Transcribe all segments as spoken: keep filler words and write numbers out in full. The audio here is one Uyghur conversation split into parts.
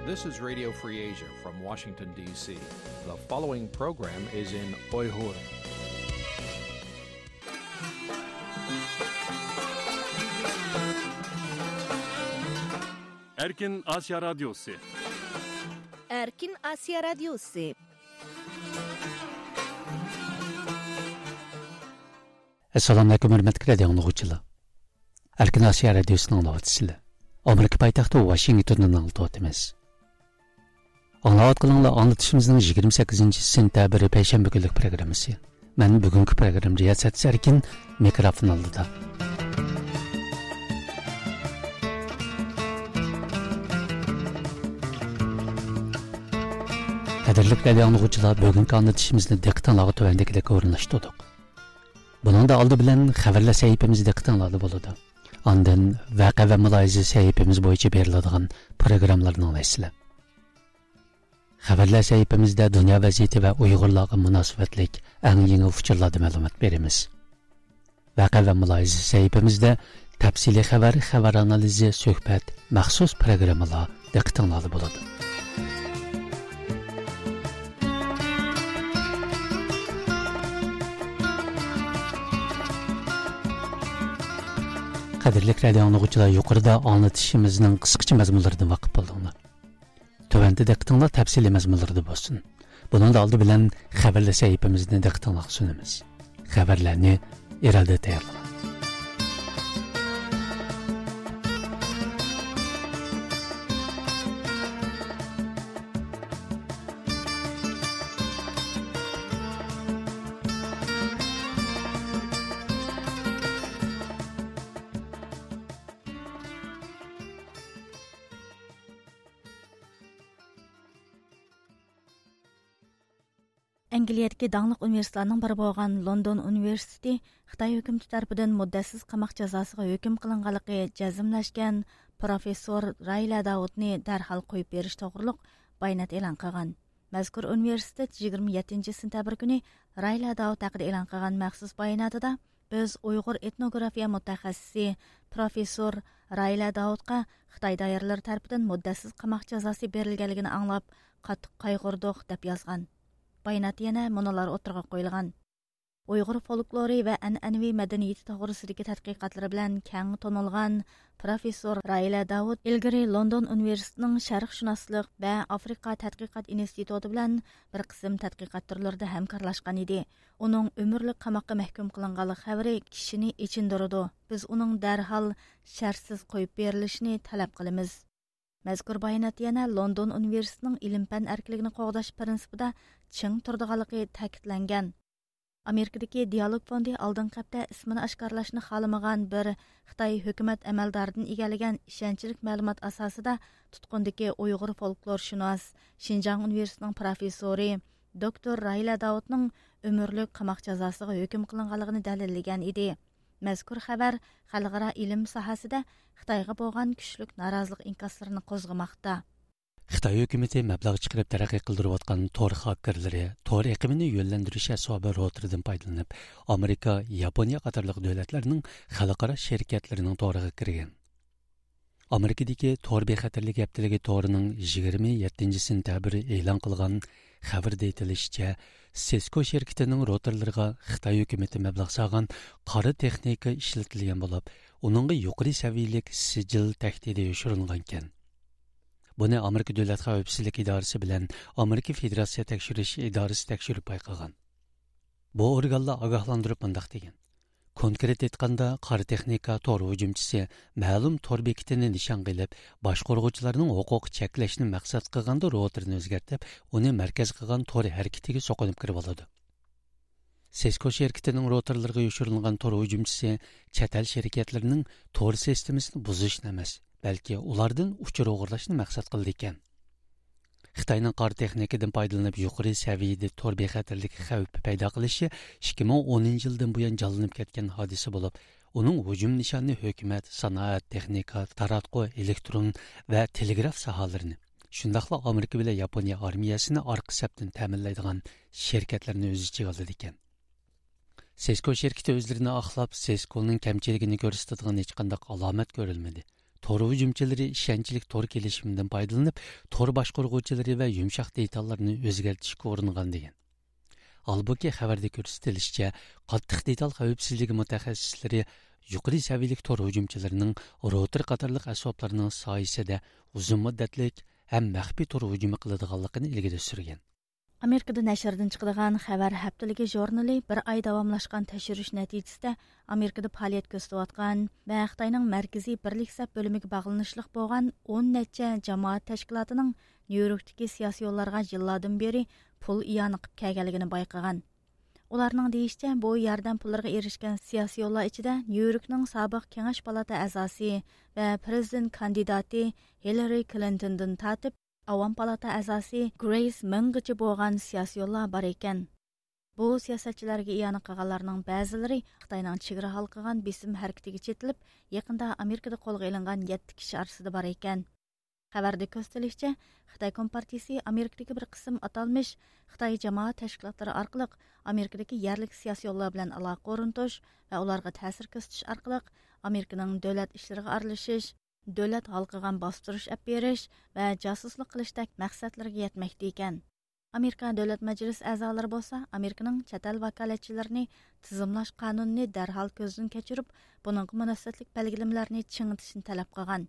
This is Radio Free Asia from Washington, D C. The following program is in Uyghur. Erkin Asya Radyosu. Erkin Asya Radyosu. Assalomu alaykum, hurmatli radio anglayg'uchilar. Erkin Osiyo Radiosini anglayapsizlar. Amerika poytaxti Washingtondan anglatyapmiz. Anglayotganinglar anglatishimizning yigirma sakkizinchi sentabr payshanba kunlik programmasi. Men bugungi program riyosatchisi Erkin, mikrofon oldida. Qadrli radio anglayg'uchilar, bugungi anglatishimizni diqqatinglarga tuvandagilikka o'rinlashtirdik. بۇنىڭدا ئالدى بىلەن خەۋەرلەر سەھىپىمىزدە دىققىتىڭلاردا بولىدۇ. ئاندىن ۋەقە ۋە مۇلاھىزە سەھىپىمىز بويىچە بېرىلىدىغان پروگراممىلارنى ئاڭلايسىلەر. خەۋەرلەر سەھىپىمىزدە دۇنيا ۋەزىيىتى ۋە ئۇيغۇرلارغا مۇناسىۋەتلىك ئەڭ يېڭى ئۇچۇرلاردا مەلۇمات بېرىمىز. ۋەقە ۋە مۇلاھىزە سەھىپىمىزدە تەپسىلىي خەۋەر، خەۋەر ئانالىزى، سۆھبەت، مەخسۇس پروگراممىلار دىققىتىڭلاردا بولىدۇ. قەدىرلىك رادىئو ئاڭلىغۇچىلار، يۇقىرىدا ئاڭلىتىشىمىزنىڭ قىسقىچە مەزمۇنلىرىدىن ۋاقىپ بولدۇڭلار. تۆۋەندە دىققىتىڭلار تەپسىلىي مەزمۇنلىرىدا بولسۇن. بۇنىڭدا ئالدى بىلەن خەۋەرلەر سەھىپىمىزنى دىققىتىڭلارغا سۇنىمىز. خەۋەرلەرنى ئىرادە تەييارلىغان. ئەنگلىيەدىكى داڭلىق ئۇنىۋېرسىتېتلارنىڭ بىرى بولغان لوندون ئۇنىۋېرسىتېتى خىتاي ھۆكۈمىتى تەرىپىدىن مۇددەتسىز قاماق جازاسىغا ھۆكۈم قىلىنغانلىقى جەزملەشكەن پروفېسسور رايلە داۋۇتنى دەرھال قويۇپ بېرىش توغرۇلۇق بايانات ئېلان قىلغان. مەزكۇر ئۇنىۋېرسىتېت يىگىرمە يەتتىنچى سېنتەبىر كۈنى رايلە داۋۇت ھەققىدە ئېلان قىلغان مەخسۇس باياناتىدا، بىز ئۇيغۇر ئېتنوگرافىيە مۇتەخەسسىسى پروفېسسور رايلە داۋۇتقا خىتاي دائىرىلىرى تەرىپىدىن مۇددەتسىز قاماق جازاسى بېرىلگەنلىكىنى ئاڭلاپ، قاتتىق قايغۇردۇق، دەپ يازغان. باياناتتا يەنە مۇنۇلار ئوتتۇرىغا قويۇلغان. ئۇيغۇر فولكلورى ۋە ئەنئەنىۋى مەدەنىيىتى توغرىسىدىكى تەتقىقاتلىرى بىلەن كەڭ تونۇلغان پروفېسسور رايلە داۋۇت ئىلگىرى لوندون ئۇنىۋېرسىتېتىنىڭ شەرقشۇناسلىق ۋە ئافرىقا تەتقىقات ئىنستىتۇتى بىلەن بىر قىسىم تەتقىقات تۈرلىرىدە ھەمكارلاشقان ئىدى. ئۇنىڭ ئۆمۈرلۈك قاماققا مەھكۇم قىلىنغانلىق خەۋىرى كىشىنى ئېچىندۇرىدۇ. بىز ئۇنىڭ دەرھال شەرتسىز قويۇپ بېرىلىشىنى تەلەپ قىلىمىز. مەزكۇر باياناتتا يەنە لوندون ئۇنىۋېرسىتېتىنىڭ ئىلىم-پەن ئەركىنلىكىنى قوغداش پىرىنسىپىدا چىڭ تۇرىدىغانلىقى تەكىتلەنگەن. ئامېرىكىدىكى دىئالوگ فوندى ئالدىنقى ھەپتە ئىسمىنى ئاشكارىلاشنى خالىمىغان بىر خىتاي ھۆكۈمەت ئەمەلدارىدىن ئىگىلىگەن ئىشەنچلىك مەلۇمات ئاساسىدا تۇتقۇندىكى ئۇيغۇر فولكلورشۇناس، شىنجاڭ ئۇنىۋېرسىتېتىنىڭ پروفېسسورى، دوكتور راھىلە داۋۇتنىڭ ئۆمۈرلۈك قاماق جازاسىغا ھۆكۈم قىلىنغانلىقىنى دەلىللىگەن ئىدى. مەزكۇر خەۋەر خەلقئارا ئىلىم ساھەسىدە خىتايغا بولغان كۈچلۈك نارازىلىق ئىنكاسلىرىنى قوزغىماقتا. خىتاي ھۆكۈمىتى مەبلەغ چىقىرىپ تەرەققىي قىلدۇرۇۋاتقان تور خاككېرلىرى تور ئېقىمىنى يۆنلەندۈرۈش ئەسۋابى روتېرىدىن پايدىلىنىپ، ئامېرىكا، ياپونىيە قاتارلىق دۆلەتلەرنىڭ خەلقئارا شىركەتلىرىنىڭ تورىغا كىرگەن. ئامېرىكىدىكى تور بىخەتەرلىكى ھەپتىلىكى تورىنىڭ يىگىرمە يەتتىنچى سېنتەبىر ئېلان قىلغان خەۋىرىدە ئېيتىلىشىچە، سېسكو شىركىتىنىڭ روتېرلىرىغا خىتاي ھۆكۈمىتى مەبلەغ سالغان قارا تېخنىكا ئىشلىتىلگەن بولۇپ، ئۇنىڭغا يۇقىرى سەۋىيەلىك سىجىل تەھدىتى يوشۇرۇنغانىكەن. بۇنى ئامېرىكا دۆلەت خەۋپسىزلىك ئىدارىسى بىلەن ئامېرىكا فېدېراتسىيە تەكشۈرۈش ئىدارىسى تەكشۈرۈپ بايقىغان. بۇ ئورگانلار ئاگاھلاندۇرۇپ مۇنداق دېگەن: كونكرېت ئېيتقاندا، قارا تېخنىكا تور ھۇجۇمچىسى مەلۇم تور بېكىتىنى نىشانغا ئېلىپ، باشقۇرغۇچىلارنىڭ ھوقۇقى چەكلەشنى مەقسەت قىلغاندا روتېرنى ئۆزگەرتىپ، ئۇنى مەركەز قىلغان تور ھەرىكىتىگە سوقۇنۇپ كىرىۋالىدۇ. سېسكو شىركىتىنىڭ روتېرلىرىغا يوشۇرۇنغان تور ھۇجۇمچىسى چەت ئەل شىركەتلىرىنىڭ تور سىستېمىسىنى بۇزۇشنى ئەمەس، بەلكى ئۇلاردىن ئۇچۇر ئوغرىلاشنى مەقسەت قىلىدىكەن. خىتاينىڭ قارا تېخنىكىدىن پايدىلىنىپ يۇقىرى سەۋىيەدە تور بىخەتەرلىكى خەۋپى پەيدا قىلىشى ئىككى مىڭ ئونىنچى يىلدىن بۇيان جانلىنىپ كەتكەن ھادىسە بولۇپ، ئۇنىڭ ھۇجۇم نىشانى ھۆكۈمەت، سانائەت، تېخنىكا، تاراتقۇ، ئېلېكترون ۋە تېلېگراف ساھەلىرىنى، شۇنداقلا ئامېرىكا بىلەن ياپونىيە ئارمىيەسىنى ئارقا سەپتىن تەمىنلەيدىغان شىركەتلەرنى ئۆز ئىچىگە ئالىدىكەن. سېسكو شىركىتى ئۆزلىرىنى ئاقلاپ، سېسكونىڭ كەمچىلىكىنى كۆرسىتىدىغان ھېچقانداق ئالامەت كۆرۈلمىدى. تور ھۇجۇمچىلىرى ئىشەنچلىك تور كېلىشىمىدىن پايدىلىنىپ، تور باشقۇرغۇچىلىرى ۋە يۇمشاق دېتاللارنى ئۆزگەرتىشكە ئۇرۇنغان دېگەن. ھالبۇكى، خەۋەردە كۆرسىتىلىشىچە، قاتتىق دېتال خەۋپسىزلىكى مۇتەخەسسىسلىرى يۇقىرى سەۋىيەلىك تور ھۇجۇمچىلىرىنىڭ روتېر قاتارلىق ئەسۋابلارنىڭ سايىسىدە ئۇزۇن مۇددەتلىك ھەم مەخپىي تور ھۇجۇمى قىلىدىغانلىقىنى ئىلگىرى سۈرگەن. ئامېرىكىدا نەشردىن چىقىدىغان خەۋەر ھەپتىلىكى ژۇرنىلى بىر ئاي داۋاملاشقان تەكشۈرۈش نەتىجىسىدە، ئامېرىكىدا پائالىيەت كۆرسىتىۋاتقان ۋە خىتاينىڭ مەركىزىي بىرلىك سەپ بۆلۈمىگە باغلىنىشلىق بولغان ئون نەچچە جامائەت تەشكىلاتىنىڭ نيۇ يوركتىكى سىياسىيونلارغا يىللاردىن بېرى پۇل ئىئانە قىلىپ كەلگەنلىكىنى بايقىغان. ئۇلارنىڭ دېيىشىچە، بۇ ياردەم پۇللىرىغا ئېرىشكەن سىياسىيونلار ئىچىدە نيۇ يوركنىڭ سابىق كېڭەش پالاتا ئەزاسى ۋە پىرېزىدېنت كاندىداتى ھىللارى كلىنتوندىن تارتىپ، ئاۋام پالاتا ئەزاسى گرېيس مېڭغىچە بولغان سىياسىيونلار بار ئىكەن. بۇ سىياسەتچىلەرگە ئىئانە قىلغانلارنىڭ بەزىلىرى خىتاينىڭ چېگرا ھالقىغان بېسىم ھەرىكىتىگە چېتىلىپ، يېقىندا ئامېرىكىدا قولغا ئېلىنغان يەتتە كىشى ئارىسىدا بار ئىكەن. خەۋەردە كۆرسىتىلىشىچە، خىتاي كومپارتىيىسى ئامېرىكىدىكى بىر قىسىم ئاتالمىش خىتاي جامائەت تەشكىلاتلىرى ئارقىلىق ئامېرىكىدىكى يەرلىك سىياسىيونلار بىلەن ئالاقە ئورنىتىش ۋە ئۇلارغا تەسىر كۆرسىتىش ئارقىلىق ئامېرىكىنىڭ دۆلەت ئىشلىرىغا ئارىلىشىش، دۆلەت ھالقىغان باستۇرۇش ئەپ بېرىش ۋە جاسۇسلۇق قىلىشتەك مەقسەتلىرىگە يەتمەكتە ئىكەن. ئامېرىكا دۆلەت مەجلىسى ئەزالىرى بولسا ئامېرىكىنىڭ چەت ئەل ۋاكالەتچىلىرىنى تىزىملاش قانۇنىنى دەرھال كۆزدىن كەچۈرۈپ، بۇنىڭغا مۇناسىۋەتلىك بەلگىلىمىلەرنى چىڭىتىشنى تەلەپ قىلغان.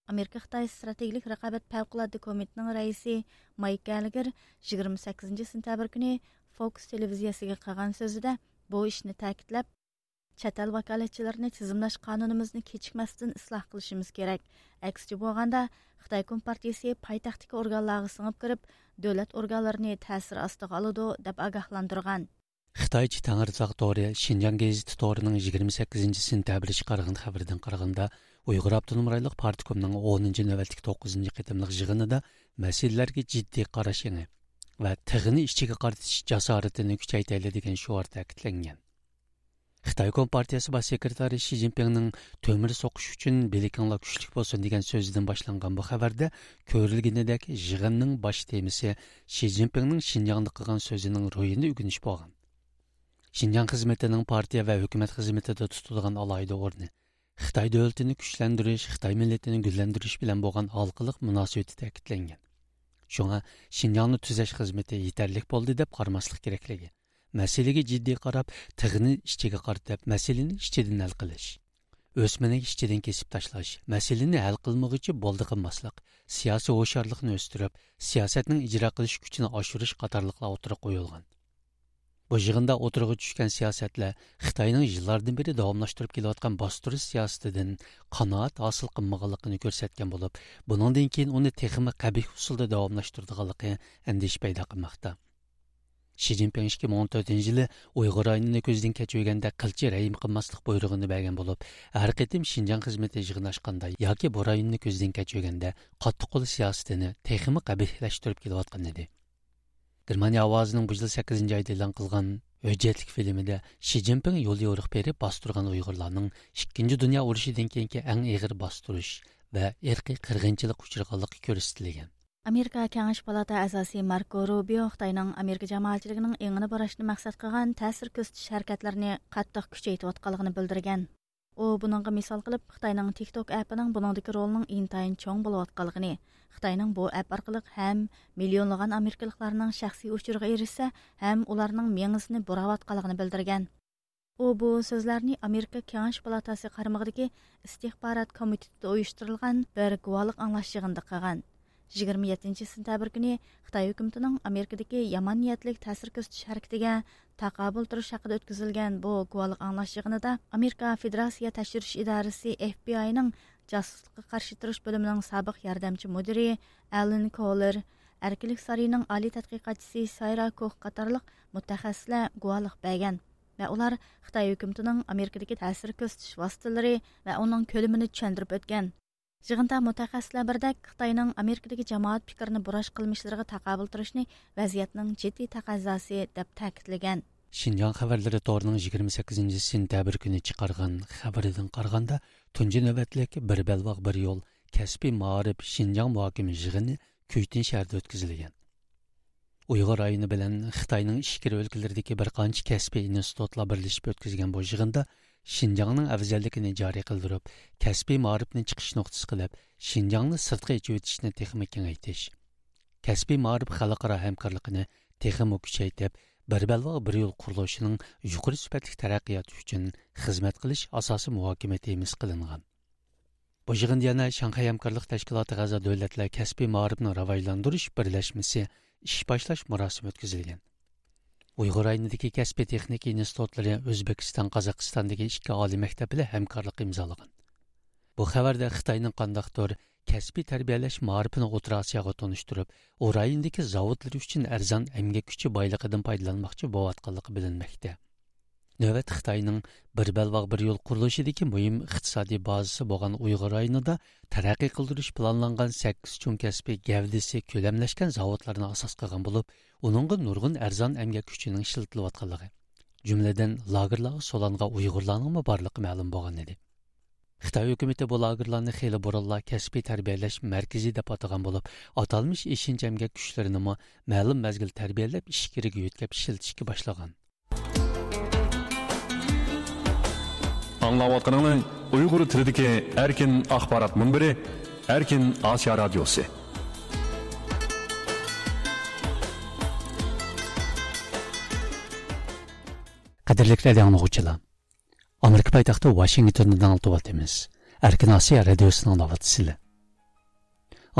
ئامېرىكا خىتاي ستراتېگىيەلىك رىقابەت پەۋقۇلئاددە كومىتېتىنىڭ رەئىسى مايك گەللېگېر يىگىرمە سەككىزىنچى سېنتەبىر كۈنى فوكس تېلېۋىزىيەسىگە قىلغان سۆزىدە بۇ ئىشنى تەكىتلەپ، چەت ئەل ۋاكالەتچىلىرىنى تىزىملاش قانۇنىمىزنى كېچىكمەستىن ئىسلاھ قىلىشىمىز كېرەك. ئەكسىچە بولغاندا، خىتاي كومپارتىيىسى پايتەختتىكى ئورگانلارغا سىڭىپ كىرىپ، دۆلەت ئورگانلىرىنى تەسىر ئاستىغا ئالىدۇ، دەپ ئاگاھلاندۇرغان. خىتايچە تەڭرىتاغ تورى شىنجاڭ گېزىتى تورىنىڭ يىگىرمە سەككىزىنچى سېنتەبىر چىقارغان خەۋىرىدىن قارىغاندا، ئۇيغۇر ئاپتونوم رايونلۇق پارتكومنىڭ ئونىنچى نۆۋەتلىك توققۇزىنچى قېتىملىق يىغىنىدا مەسىلىلەرگە جىددىي قاراش ئېڭى ۋە تىغنى ئىچىگە قارىتىش جاسارىتىنى كۈچەيتەيلى دېگەن شوئار تەكىتلەنگەن. خىتاي كومپارتىيەسى باش سېكرېتارى شى جىنپىڭنىڭ «تۆمۈر سوقۇش ئۈچۈن بىلىكىڭلار كۈچلۈك بولسۇن» دېگەن سۆزىدىن باشلانغان بۇ خەۋەردە كۆرۈلگىنىدەك يىغىننىڭ باش تېمىسى شى جىنپىڭنىڭ شىنجاڭدا قىلغان سۆزىنىڭ روھىنى ئۆگىنىش بولغان. شىنجاڭ خىزمىتىنىڭ پارتىيە ۋە ھۆكۈمەت خىزمىتىدە تۇتىدىغان ئالاھىدە ئورنى، خىتاي دۆلىتىنى كۈچلەندۈرۈش، خىتاي مىللىتىنى گۈللەندۈرۈش بىلەن بولغان ھالقىلىق مۇناسىۋىتى تەكىتلەنگەن. شۇڭا شىنجاڭنى تۈزەش خىزمىتى يېتەرلىك بولدى دەپ قارىماسلىق كېرەكلىكى، مەسىلىگە جىددىي قاراپ، تىغنى ئىچىگە قارىتىپ، مەسىلىنى ئىچىدىن ھەل قىلىش، ئۆسمىنى ئىچىدىن كېسىپ تاشلاش، مەسىلىنى ھەل قىلمىغۇچە بولدى قىلماسلىق، سىياسىي ھوشيارلىقنى ئۆستۈرۈپ، سىياسەتنىڭ ئىجرا قىلىش كۈچىنى ئاشۇرۇش قاتارلىقلار ئوتتۇرىغا قويۇلغان. بۇ يىغىندا ئوتتۇرىغا چۈشكەن سىياسەتلەر خىتاينىڭ يىللاردىن بېرى داۋاملاشتۇرۇپ كېلىۋاتقان باستۇرۇش سىياسىتىدىن قانائەت ھاسىل قىلمىغانلىقىنى كۆرسەتكەن بولۇپ، بۇنىڭدىن كېيىن ئۇنى تېخىمۇ قەبىھ ئۇسۇلدا داۋاملاشتۇرىدىغانلىقى ئەندىشە پەيدا قىلماقتا. شى جىنپىڭ ئىككى مىڭ ئون تۆتىنچى يىلى ئۇيغۇر رايونىنى كۆزدىن كەچۈرگەندە قىلچە رەھىم قىلماسلىق بۇيرۇغىنى بەرگەن بولۇپ، ھەر قېتىم شىنجاڭ خىزمىتى يىغىن ئاچقاندا ياكى بۇ رايوننى كۆزدىن كەچۈرگەندە قاتتىق قول سىياسىتىنى تېخىمۇ قەبىھلەشتۈرۈپ كېلىۋاتقان ئىدى. گېرمانىيە ئاۋازىنىڭ بۇ يىل سەككىزىنچى ئايدا ئېلان قىلغان ھۆججەتلىك فىلىمىدە شى جىنپىڭ يوليورۇق بېرىپ باستۇرغان ئۇيغۇرلارنىڭ ئىككىنچى دۇنيا ئۇرۇشىدىن كېيىنكى ئەڭ ئېغىر باستۇرۇش ۋە ئىرقىي قىرغىنچىلىققا ئۇچرىغانلىقى كۆرسىتىلگەن. ئامېرىكا كېڭەش پالاتا ئەزاسى ماركو روبىيو خىتاينىڭ ئامېرىكا جامائەتچىلىكىنىڭ ئېڭىنى بۇراشنى مەقسەت قىلغان تەسىر كۆرسىتىش ھەرىكەتلىرىنى قاتتىق كۈچەيتىۋاتقانلىقىنى بىلدۈرگەن. ئۇ بۇنىڭغا مىسال قىلىپ، خىتاينىڭ تىك توك ئەپىنىڭ بۇنىڭدىكى رولىنىڭ ئىنتايىن چوڭ بولۇۋاتقانلىقىنى، خىتاينىڭ بۇ ئەپ ئارقىلىق ھەم مىليونلىغان ئامېرىكىلىقلارنىڭ شەخسىي ئۇچۇرىغا ئېرىشسە، ھەم ئۇلارنىڭ مېڭىسىنى بۇراۋاتقانلىقىنى بىلدۈرگەن. ئۇ بۇ سۆزلەرنى ئامېرىكا كېڭەش پالاتاسى قارمىقىدىكى ئىستىخبارات كومىتېتىدا ئۇيۇشتۇرۇلغان بىر گۇۋاھلىق ئاڭلاش يىغىنىدا قىلغان. يىگىرمە يەتتىنچى سېنتەبىر كۈنى خىتاي ھۆكۈمىتىنىڭ ئامېرىكىدىكى يامان نىيەتلىك تەسىر كۆرسىتىش ھەرىكىتىگە تاقابىل تۇرۇش ھەققىدە ئۆتكۈزۈلگەن بۇ گۇۋاھلىق ئاڭلاش يىغىنىدا ئامېرىكا فېدېراتسىيە تەكشۈرۈش ئىدارىسى، ئېف بى ئاينىڭ جاسۇسلۇققا قارشى تۇرۇش بۆلۈمىنىڭ سابىق ياردەمچى مۇدىرى ئالېن كولېر، ئەركىنلىك سارىيىنىڭ ئالىي تەتقىقاتچىسى سايرا كوخ قاتارلىق مۇتەخەسسىسلەر گۇۋاھلىق بەرگەن ۋە ئۇلار خىتاي ھۆكۈمىتىنىڭ ئامېرىكىدىكى تەسىر كۆرسىتىش ۋاسىتىلىرى ۋە ئۇنىڭ كۆلىمىنى چۈشەندۈرۈپ ئۆتكەن. يىغىندا مۇتەخەسسىسلەر بىردەك خىتاينىڭ ئامېرىكىدىكى جامائەت پىكرىنى بۇراش قىلمىشلىرىغا تاقابىل تۇرۇشنى ۋەزىيەتنىڭ جىددىي تەقەززاسى دەپ تەكىتلىگەن. شىنجاڭ خەۋەرلىرى تورىنىڭ يىگىرمە سەككىزىنچى سېنتەبىر كۈنى چىقارغان خەۋىرىدىن قارىغاندا، تۇنجى نۆۋەتلىك بىر بەلباغ بىر يول كەسپىي مائارىپ شىنجاڭ مۇھاكىمە يىغىنى كۈيتۈن شەھىرىدە ئۆتكۈزۈلگەن. ئۇيغۇر رايونى بىلەن خىتاينىڭ ئىچكىرى ئۆلكىلىرىدىكى بىر قانچە كەسپىي ئىنستىتۇتلار بىرلىشىپ ئۆتكۈزگەن بۇ يىغىندا شىنجاڭنىڭ ئەۋزەللىكىنى جارى قىلدۇرۇپ، كەسپىي مائارىپنى چىقىش نۇقتىسى قىلىپ، شىنجاڭنى سىرتقا ئېچىۋېتىشنى تېخىمۇ كېڭەيتىش، كەسپىي مائارىپ خەلقئارا ھەمكارلىقىنى تېخىمۇ كۈچەيتىپ، بىر بەلباغ بىر يول قۇرۇلۇشىنىڭ يۇقىرى سۈپەتلىك تەرەققىياتى ئۈچۈن خىزمەت قىلىش ئاساسىي مۇھاكىمە تېمىسى قىلىنغان. بۇ يىغىندا يەنە شاڭخەي ھەمكارلىق تەشكىلاتىغا ئەزا دۆلەتلەر كەسپىي مائارىپنى راۋاجلاندۇرۇش بىرلەشمىسى ئىش باشلاش مۇراسىمى ئۆتكۈزۈلگەن. ئۇيغۇر رايونىدىكى كەسپىي تېخنىكا ئىنستىتۇتلىرى ئۆزبېكىستان، قازاقىستاندىكى ئىككى ئالىي مەكتەپ بىلەن ھەمكارلىق ئىمزالىغان. بۇ خەۋەردە خىتاينىڭ قانداقتۇر كەسپىي تەربىيەلەش مائارىپىنى ئوتتۇرا ئاسىياغا تونۇشتۇرۇپ، ئۇ رايوندىكى زاۋۇتلىرى ئۈچۈن ئەرزان ئەمگەك كۈچى بايلىقىدىن پايدىلانماقچى بولۇۋاتقانلىقى بىلىنمەكتە. نۆۋەتتە خىتاينىڭ بىر بەلباغ بىر يول قۇرۇلۇشىدىكى مۇھىم ئىقتىسادىي بازىسى بولغان ئۇيغۇر رايونىدا تەرەققىي قىلدۇرۇش پىلانلانغان سەككىز چوڭ كەسپىي گەۋدىسى كۆلەملەشكەن زاۋۇتلارنى ئاساس قىلغان بولۇپ، ئۇنىڭغا نۇرغۇن ئەرزان ئەمگەك كۈچىنىڭ ئىشلىتىلىۋاتقانلىقى، جۈملىدىن لاگېرلارغا سولانغان ئۇيغۇرلارنىڭمۇ بارلىقى مەلۇم بولغان ئىدى. خىتاي ھۆكۈمىتى بۇ لاگېرلارنى خېلى بۇرۇنلا كەسپىي تەربىيەلەش مەركىزى دەپ ئاتىغان بولۇپ، ئاتالمىش ئېشىنچا ئەمگەك كۈچلىرىنىمۇ مەلۇم مەزگىل تەربىيەلەپ، ئىچكىرىگە يۆتكەپ ئىشلىتىشكە باشلىغان. ئاڭلاۋاتقىنىڭلار ئۇيغۇر تىلىدىكى ئەركىن ئاخبارات مۇنبىرى، ئەركىن ئاسىيا رادىيوسى. قەدىرلىك رادىيو ئاڭلىغۇچىلار، ئامېرىكا پايتەختى ۋاشىنگتوندىن ئاڭلىتىۋاتىمىز. ئەركىن ئاسىيا رادىيوسىنى ئاڭلاۋاتىسىلەر.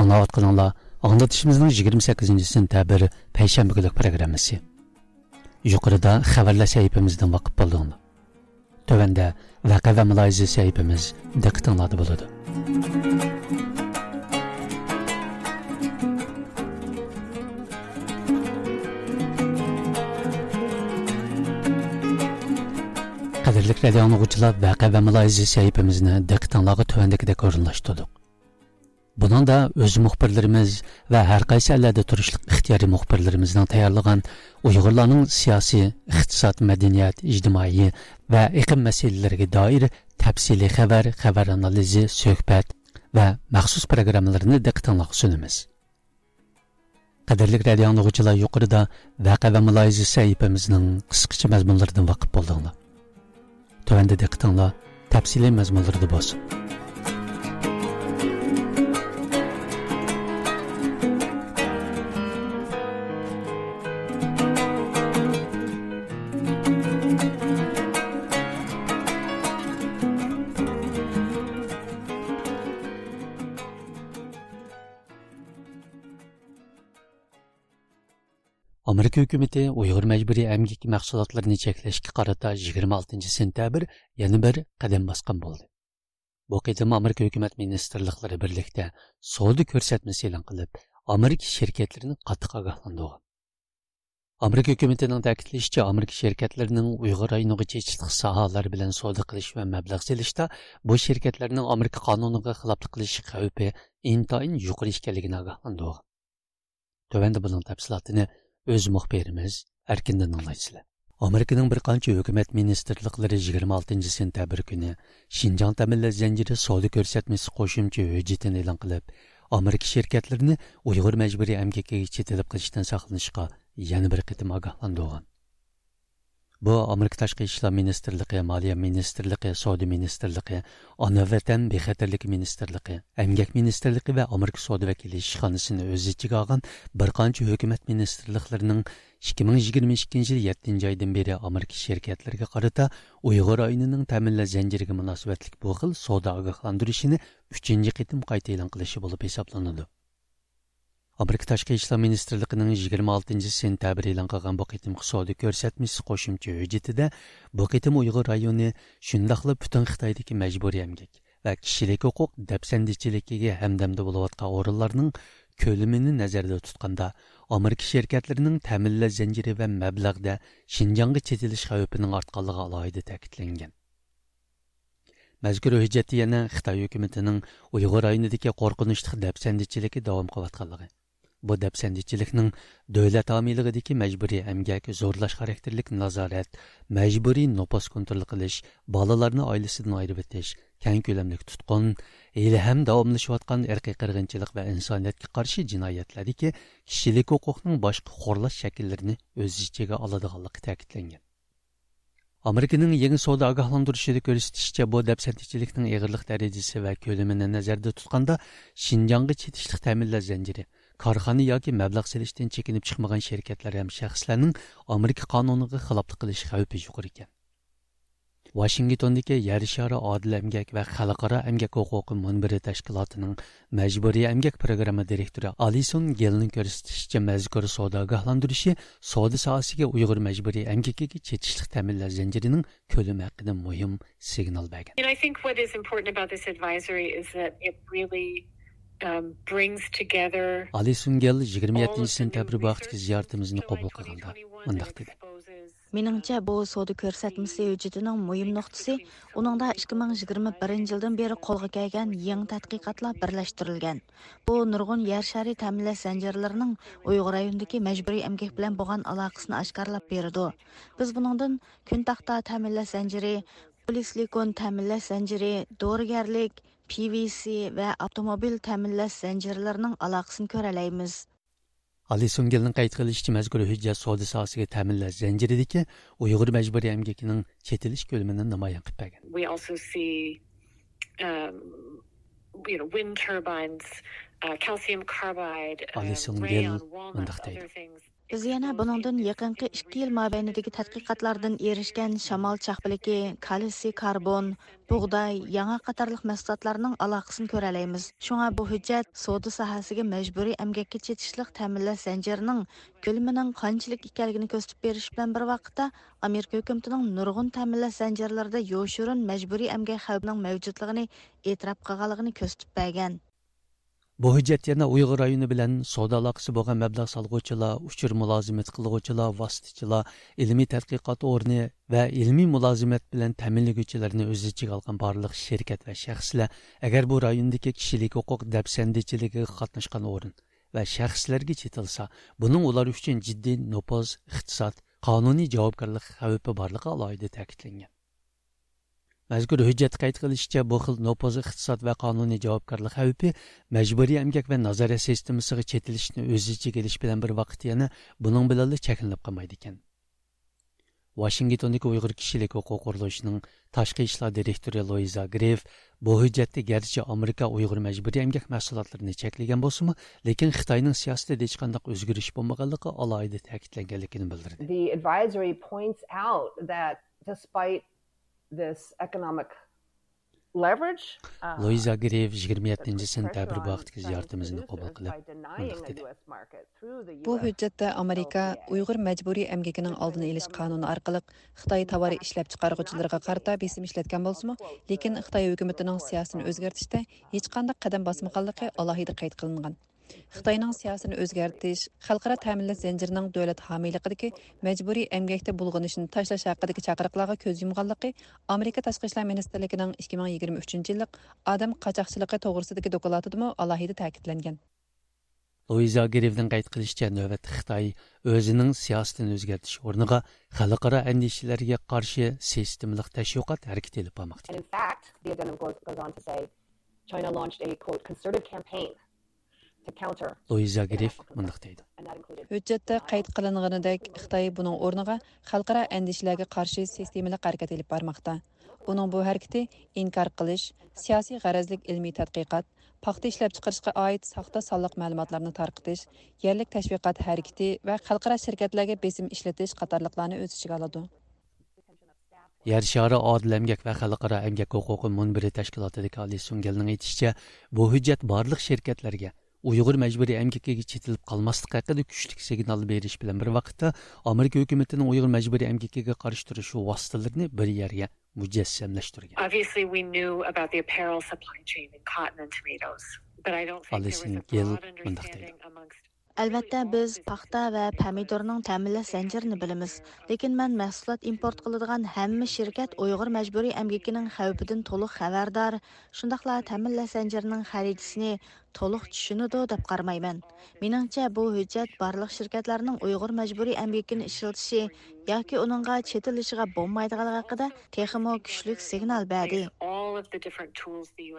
ئاڭلاۋاتقىنىڭلار ئاڭلىتىشىمىزنىڭ يىگىرمە سەككىزىنچى سېنتەبىر پەيشەنبە كۈنلۈك پروگراممىسى. يۇقىرىدا خەۋەرلەر سەھىپىمىزدىن ۋاقىپ بولدۇڭلار. تۆۋەندە ۋەقە ۋە مۇلاھىزە سەھىپىمىز دىققىتىڭلاردا بولىدۇ. قەدىرلىك رادىيو ئاڭلىغۇچىلار، ۋەقە ۋە مۇلاھىزە سەھىپىمىزنى دىققىتىڭلارغا تۆۋەندىكىدەك ئورۇنلاشتۇردۇق. بۇنىڭدا ئۆز مۇخبىرلىرىمىز ۋە ھەر قايسى ئەللەردە تۇرۇشلۇق ئىختىيارىي مۇخبىرلىرىمىزنىڭ تەييارلىغان ئۇيغۇرلارنىڭ سىياسىي، ئىقتىساد، مەدەنىيەت، ئىجتىمائىي ۋە ئېقىم مەسىلىلىرىگە دائىر تەپسىلىي خەۋەر، خەۋەر ئانالىزى، سۆھبەت ۋە مەخسۇس پروگراممىلىرىنى دىققىتىڭلارغا سۇنىمىز. قەدىرلىك رادىيو ئاڭلىغۇچىلار، يۇقىرىدا ۋەقە ۋە مۇلاھىزە سەھىپىمىزنىڭ قىسقىچە مەزمۇنلىرىدىن ۋاقىپ بولدۇڭلار. تۆۋەندە دىققىتىڭلار تەپسىلىي مەزمۇنلىرىدا بولسۇن. ئامېرىكا ھۆكۈمىتى ئۇيغۇر مەجبۇرىي ئەمگىكى مەھسۇلاتلىرىنى چەكلەشكە قارىتا يىگىرمە ئالتىنچى سېنتەبىر يەنە بىر قەدەم باسقان بولدى. بۇ قېتىم ئامېرىكا ھۆكۈمەت مىنىستىرلىقلىرى بىرلىكتە سودا كۆرسەتمىسى ئېلان قىلىپ، ئامېرىكا شىركەتلىرىنى قاتتىق ئاگاھلاندۇرغان. ئامېرىكا ھۆكۈمىتىنىڭ تەكىتلىشىچە، ئامېرىكا شىركەتلىرىنىڭ ئۇيغۇر رايونىغا چېتىشلىق ساھەلەر بىلەن سودا قىلىش ۋە مەبلەغ سېلىشتا بۇ شىركەتلەرنىڭ ئامېرىكا قانۇنىغا خىلاپلىق قىلىش خەۋپى ئىنتايىن يۇقىرى ئىكەنلىكىنى ئاگاھلاندۇرغان. تۆۋەندە بۇنىڭ تەپسىلاتىنى ئۆز مۇخبىرىمىز ئەركىندىن ئاڭلايسىلەر. ئامېرىكىنىڭ بىر قانچە ھۆكۈمەت مىنىستىرلىقلىرى يىگىرمە ئالتىنچى سېنتەبىر كۈنى شىنجاڭ تەمىنلەش زەنجىرى سودا كۆرسەتمىسى قوشۇمچە ھۆججىتىنى ئېلان قىلىپ، ئامېرىكا شىركەتلىرىنى ئۇيغۇر مەجبۇرىي ئەمگىكىگە چېتىلىپ قېلىشتىن ساقلىنىشقا يەنە بىر قېتىم ئاگاھلاندۇرغان. بۇ ئامېرىكا تاشقى ئىشلار مىنىستىرلىقى، مالىيە مىنىستىرلىقى، سودا مىنىستىرلىقى، ئانا ۋەتەن بىخەتەرلىكى مىنىستىرلىقى، ئەمگەك مىنىستىرلىقى ۋە ئامېرىكا سودا ۋەكىللىشىخانىسىنى ئۆز ئىچىگە ئالغان بىر قانچە ھۆكۈمەت مىنىستىرلىقلىرىنىڭ ئىككى مىڭ يىگىرمە ئىككىنچى يىل يەتتىنچى ئايدىن بېرى ئامېرىكا شىركەتلىرىگە قارىتا ئۇيغۇر رايونىنىڭ تەمىنلەش زەنجىرىگە مۇناسىۋەتلىك بۇ خىل سودا ئاگاھلاندۇرۇشىنى ئۈچىنچى قېتىم قايتا ئېلان قىلىشى بولۇپ ھېسابلىنىدۇ. ئامېرىكا تاشقى ئىشلار مىنىستىرلىقىنىڭ يىگىرمە ئالتىنچى سېنتەبىر ئېلان قىلغان بۇ قېتىمقى سودا كۆرسەتمىسى قوشۇمچە ھۆججىتىدە، بۇ قېتىم ئۇيغۇر رايونى شۇنداقلا پۈتۈن خىتايدىكى مەجبۇرىي ئەمگەك ۋە كىشىلىك ھوقۇق دەپسەندىچىلىكىگە ھەمدەمدە بولۇۋاتقان ئورۇنلارنىڭ كۆلىمىنى نەزەردە تۇتقاندا، ئامېرىكا شىركەتلىرىنىڭ تەمىنلەش زەنجىرى ۋە مەبلەغدە شىنجاڭغا چېتىلىش خەۋپىنىڭ ئارتقانلىقى ئالاھىدە تەكىتلەنگەن. مەزكۇر ھۆججەتتە يەنە خىتاي ھۆكۈمىتىنىڭ ئۇيغۇر رايونىدىكى قورقۇنچلۇق دەپسەندىچىلىكى داۋام قىلىۋاتقانلىقى، بۇ دەپسەندىچىلىكنىڭ دۆلەت ھامىيلىقىدىكى مەجبۇرىي ئەمگەك، زورلاش خاراكتېرلىك نازارەت، مەجبۇرىي نوپۇس كونترول قىلىش، بالىلارنى ئائىلىسىدىن ئايرىۋېتىش، كەڭ كۆلەملىك تۇتقۇن، ھېلىھەم داۋاملىشىۋاتقان ئىرقىي قىرغىنچىلىق ۋە ئىنسانىيەتكە قارشى جىنايەتلەردىكى كىشىلىك ھوقۇقنىڭ باشقا خورلاش شەكىللىرىنى ئۆز ئىچىگە ئالىدىغانلىقى تەكىتلەنگەن. ئامېرىكىنىڭ يېڭى سودا ئاگاھلاندۇرۇشىدا كۆرسىتىشىچە، بۇ دەپسەندىچىلىكنىڭ ئېغىرلىق دەرىجىسى ۋە كۆلىمىنى نەزەردە تۇتقاندا، شىنجاڭغا چېتىشلىق تەمىنلەش زەنجىرى، كارخانا ياكى مەبلەغ سېلىشتىن چېكىنىپ چىقمىغان شىركەتلەر ھەم شەخسلەرنىڭ ئامېرىكا قانۇنىغا خىلاپلىق قىلىش خەۋپى يۇقىرى ئىكەن. ۋاشىنگتوندىكى يەر شارى ئادىل ئەمگەك ۋە خەلقئارا ئەمگەك ھوقۇقى مۇنبىرى تەشكىلاتىنىڭ مەجبۇرىي ئەمگەك پىروگرامما دىرېكتورى ئالىسون گېلنىڭ كۆرسىتىشىچە، مەزكۇر سودا ئاگاھلاندۇرۇشى سودا ساھەسىگە ئۇيغۇر مەجبۇرىي ئەمگىكىگە چېتىشلىق تەمىنلەش زەنجىرىنىڭ كۆلىمى ھەققىدە مۇھىم سىگنال بەرگەن. And I think what is important about this advisory is that it really, um, brings together ئالىسون گېل يىگىرمە يەتتىنچى سېنتەبىر بۇ ھەقتىكى زىيارىتىمىزنى قوبۇل قىلغاندا مۇنداق دېدى. مېنىڭچە، بۇ سودا كۆرسەتمىسى ھۆججىتىنىڭ مۇھىم نۇقتىسى، ئۇنىڭدا ئىككى مىڭ يىگىرمە بىرىنچى يىلدىن بېرى قولغا كەلگەن يېڭى تەتقىقاتلار بىرلەشتۈرۈلگەن. بۇ نۇرغۇن يەر شارى تەمىنلەش زەنجىرلىرىنىڭ ئۇيغۇر رايونىدىكى مەجبۇرىي ئەمگەك بىلەن بولغان ئالاقىسىنى ئاشكارىلاپ بېرىدۇ. بىز بۇنىڭدىن كۈن تاختا تەمىنلەش زەنجىرى، پولىسىلىكون تەمىنلەش زەنجىرى، دورىگەرلىك، پىۋىسى ۋە ئاپتوموبىل تەمىنلەش زەنجىرلىرىنىڭ ئالاقىسىنى كۆرەلەيمىز. ئالىسون گېلنىڭ قەيت قىلىشىچە، مەزكۇر ھۆججەت سودا ساھەسىگە تەمىنلەش زەنجىرىدىكى ئۇيغۇر مەجبۇرىي ئەمگىكىنىڭ چېتىلىش كۆلىمىنى نامايان قىلىپ بەرگەن. We also see, um, you know, wind turbines, uh, calcium carbide, um, ئالىسون گېل rayon, walnuts, مۇنداق دەيدۇ. Other things. بىز يەنە بۇنىڭدىن يېقىنقى ئىككى يىل مابەينىدىكى تەتقىقاتلاردىن ئېرىشكەن شامال چاقپىلىكى، كالتسىي كاربون، بۇغداي، ياڭاق قاتارلىق مەھسۇلاتلارنىڭ ئالاقىسىنى كۆرەلەيمىز. شۇڭا بۇ ھۆججەت سودا ساھەسىگە مەجبۇرىي ئەمگەككە چېتىشلىق تەمىنلەش زەنجىرىنىڭ كۆلىمىنىڭ قانچىلىك ئىكەنلىكىنى كۆرسىتىپ بېرىش بىلەن بىر ۋاقىتتا، ئامېرىكا ھۆكۈمىتىنىڭ نۇرغۇن تەمىنلەش زەنجىرلىرىدا يوشۇرۇن مەجبۇرىي ئەمگەك خەۋپىنىڭ مەۋجۇتلۇقىنى ئېتىراپ قىلغانلىقىنى كۆرسىتىپ بەرگەن. بۇ ھۆججەت يەنە ئۇيغۇر رايونى بىلەن سودا ئالاقىسى بولغان مەبلەغ سالغۇچىلار، ئۇچۇر مۇلازىمەت قىلغۇچىلار، ۋاسىتىچىلار، ئىلمىي تەتقىقات ئورنى ۋە ئىلمىي مۇلازىمەت بىلەن تەمىنلىگۈچىلەرنى ئۆز ئىچىگە ئالغان بارلىق شىركەت ۋە شەخسلەر، ئەگەر بۇ رايوندىكى كىشىلىك ھوقۇق دەپسەندىچىلىكىگە قاتناشقان ئورۇن ۋە شەخسلەرگە چېتىلسا، بۇنىڭ ئۇلار ئۈچۈن جىددىي نوپۇز، ئىقتىساد، قانۇنىي جاۋابكارلىق خەۋپى بارلىقى ئالاھىدە تەكىتلەنگەن. مەزكۇر ھۆججەتتە قەيت قىلىشىچە، بۇ خىل نوپۇز، ئىقتىساد ۋە قانۇنىي جاۋابكارلىق خەۋپى مەجبۇرىي ئەمگەك ۋە نازارەت سىستېمىسىغا چېتىلىشنى ئۆز ئىچىگە ئېلىش بىلەن بىر ۋاقىتتا يەنە بۇنىڭ بىلەنلا چەكلىنىپ قالمايدىكەن. ۋاشىنگتوندىكى ئۇيغۇر كىشىلىك ھوقۇق قۇرۇلۇشىنىڭ تاشقى ئىشلار دىرېكتورى لويزا گرېف بۇ ھۆججەتتە گەرچە ئامېرىكا ئۇيغۇر مەجبۇرىي ئەمگەك مەھسۇلاتلىرىنى چەكلىگەن بولسىمۇ، لېكىن خىتاينىڭ سىياسىتىدە ھېچقانداق ئۆزگىرىش بولمىغانلىقى ئالاھىدە تەكىتلەنگەنلىكىنى بىلدۈردى. The advisory points out that despite this economic leverage, uh, لويزا گرېف يىگىرمە يەتتىنچى سېنتەبىر بۇ ھەقتىكى زىيارىتىمىزنى قوبۇل قىلىپ مۇنداق دېدى. بۇ ھۆججەتتە ئامېرىكا ئۇيغۇر مەجبۇرىي ئەمگىكىنىڭ ئالدىنى ئېلىش قانۇنى ئارقىلىق خىتاي تاۋار ئىشلەپچىقارغۇچىلىرىغا قارىتا بېسىم ئىشلەتكەن بولسىمۇ، لېكىن خىتاي ھۆكۈمىتىنىڭ سىياسىتىنى ئۆزگەرتىشتە ھېچقانداق قەدەم باسمىغانلىقى ئالاھىدە قەيت قىلىنغان. خىتاينىڭ سىياسىتىنى ئۆزگەرتىش، خەلقئارا تەمىنلەش زەنجىرىنىڭ دۆلەت ھامىيلىقىدىكى مەجبۇرىي ئەمگەكتە بۇلغىنىشنى تاشلاش ھەققىدىكى چاقىرىقلارغا كۆز يۇمغانلىقى ئامېرىكا تاشقى ئىشلار مىنىستىرلىكىنىڭ ئىككى مىڭ يىگىرمە ئۈچىنچى يىللىق ئادەم قاچاقچىلىقى توغرىسىدىكى دوكلاتىدىمۇ ئالاھىدە تەكىتلەنگەن. لويزا گرېفنىڭ قەيت قىلىشىچە، نۆۋەتتە خىتاي ئۆزىنىڭ سىياسىتىنى ئۆزگەرتىش ئورنىغا خەلقئارا ئەندىشىلەرگە قارشى سىستېمىلىق تەشۋىقات ھەرىكىتى ئېلىپ بارماقتا. And in fact, the addendum goes, goes on to say, China launched a, quote, concerted campaign to counter لويزا گرېف مۇنداق دەيدۇ. ھۆججەتتە قەيت قىلىنغىنىدەك، خىتاي بۇنىڭ ئورنىغا خەلقئارا ئەندىشىلەرگە قارشى سىستېمىلىق ھەرىكەت ئېلىپ بارماقتا. ئۇنىڭ بۇ ھەرىكىتى ئىنكار قىلىش، سىياسىي غەرەزلىك ئىلمىي تەتقىقات، پاختا ئىشلەپچىقىرىشقا ئائىت ساختا سانلىق مەلۇماتلارنى تارقىتىش، يەرلىك تەشۋىقات ھەرىكىتى ۋە خەلقئارا شىركەتلەرگە بېسىم ئىشلىتىش قاتارلىقلارنى ئۆز ئىچىگە ئالىدۇ. يەر شارى ئادىل ئەمگەك ۋە خەلقئارا ئەمگەك ھوقۇقى مۇنبىرى تەشكىلاتىدىكى ئالى سۇڭگېلنىڭ ئېيتىشىچە، بۇ ھۆججەت بارلىق شىركەتلەرگە ئۇيغۇر مەجبۇرىي ئەمگىكىگە چېتىلىپ قالماسلىق ھەققىدە كۈچلۈك سىگنال بېرىش بىلەن بىر ۋاقىتتا، ئامېرىكا ھۆكۈمىتىنىڭ ئۇيغۇر مەجبۇرىي ئەمگىكىگە قارشى تۇرۇش ۋاسىتىلىرىنى بىر يەرگە مۇجەسسەملەشتۈرگەن. Obviously, we knew about the apparel supply chain in cotton and tomatoes, but I don't think there was a broad understanding amongst ئەلۋەتتە، بىز پاختا ۋە پەمىدۇرنىڭ تەمىنلەش زەنجىرىنى بىلىمىز، لېكىن مەن مەھسۇلات ئىمپورت قىلىدىغان ھەممە شىركەت ئۇيغۇر مەجبۇرىي ئەمگىكىنىڭ خەۋپىدىن تولۇق خەۋەردار، شۇنداقلا تەمىنلەش زەنجىرىنىڭ خەرىتىسىنى تولۇق چۈشىنىدۇ دەپ قارىمايمەن. مېنىڭچە، بۇ ھۆججەت بارلىق شىركەتلەرنىڭ ئۇيغۇر مەجبۇرىي ئەمگىكىنى ئىشلىتىشى ياكى ئۇنىڭغا چېتىلىشىغا بولمايدىغانلىقى ھەققىدە تېخىمۇ كۈچلۈك سىگنال بەردى.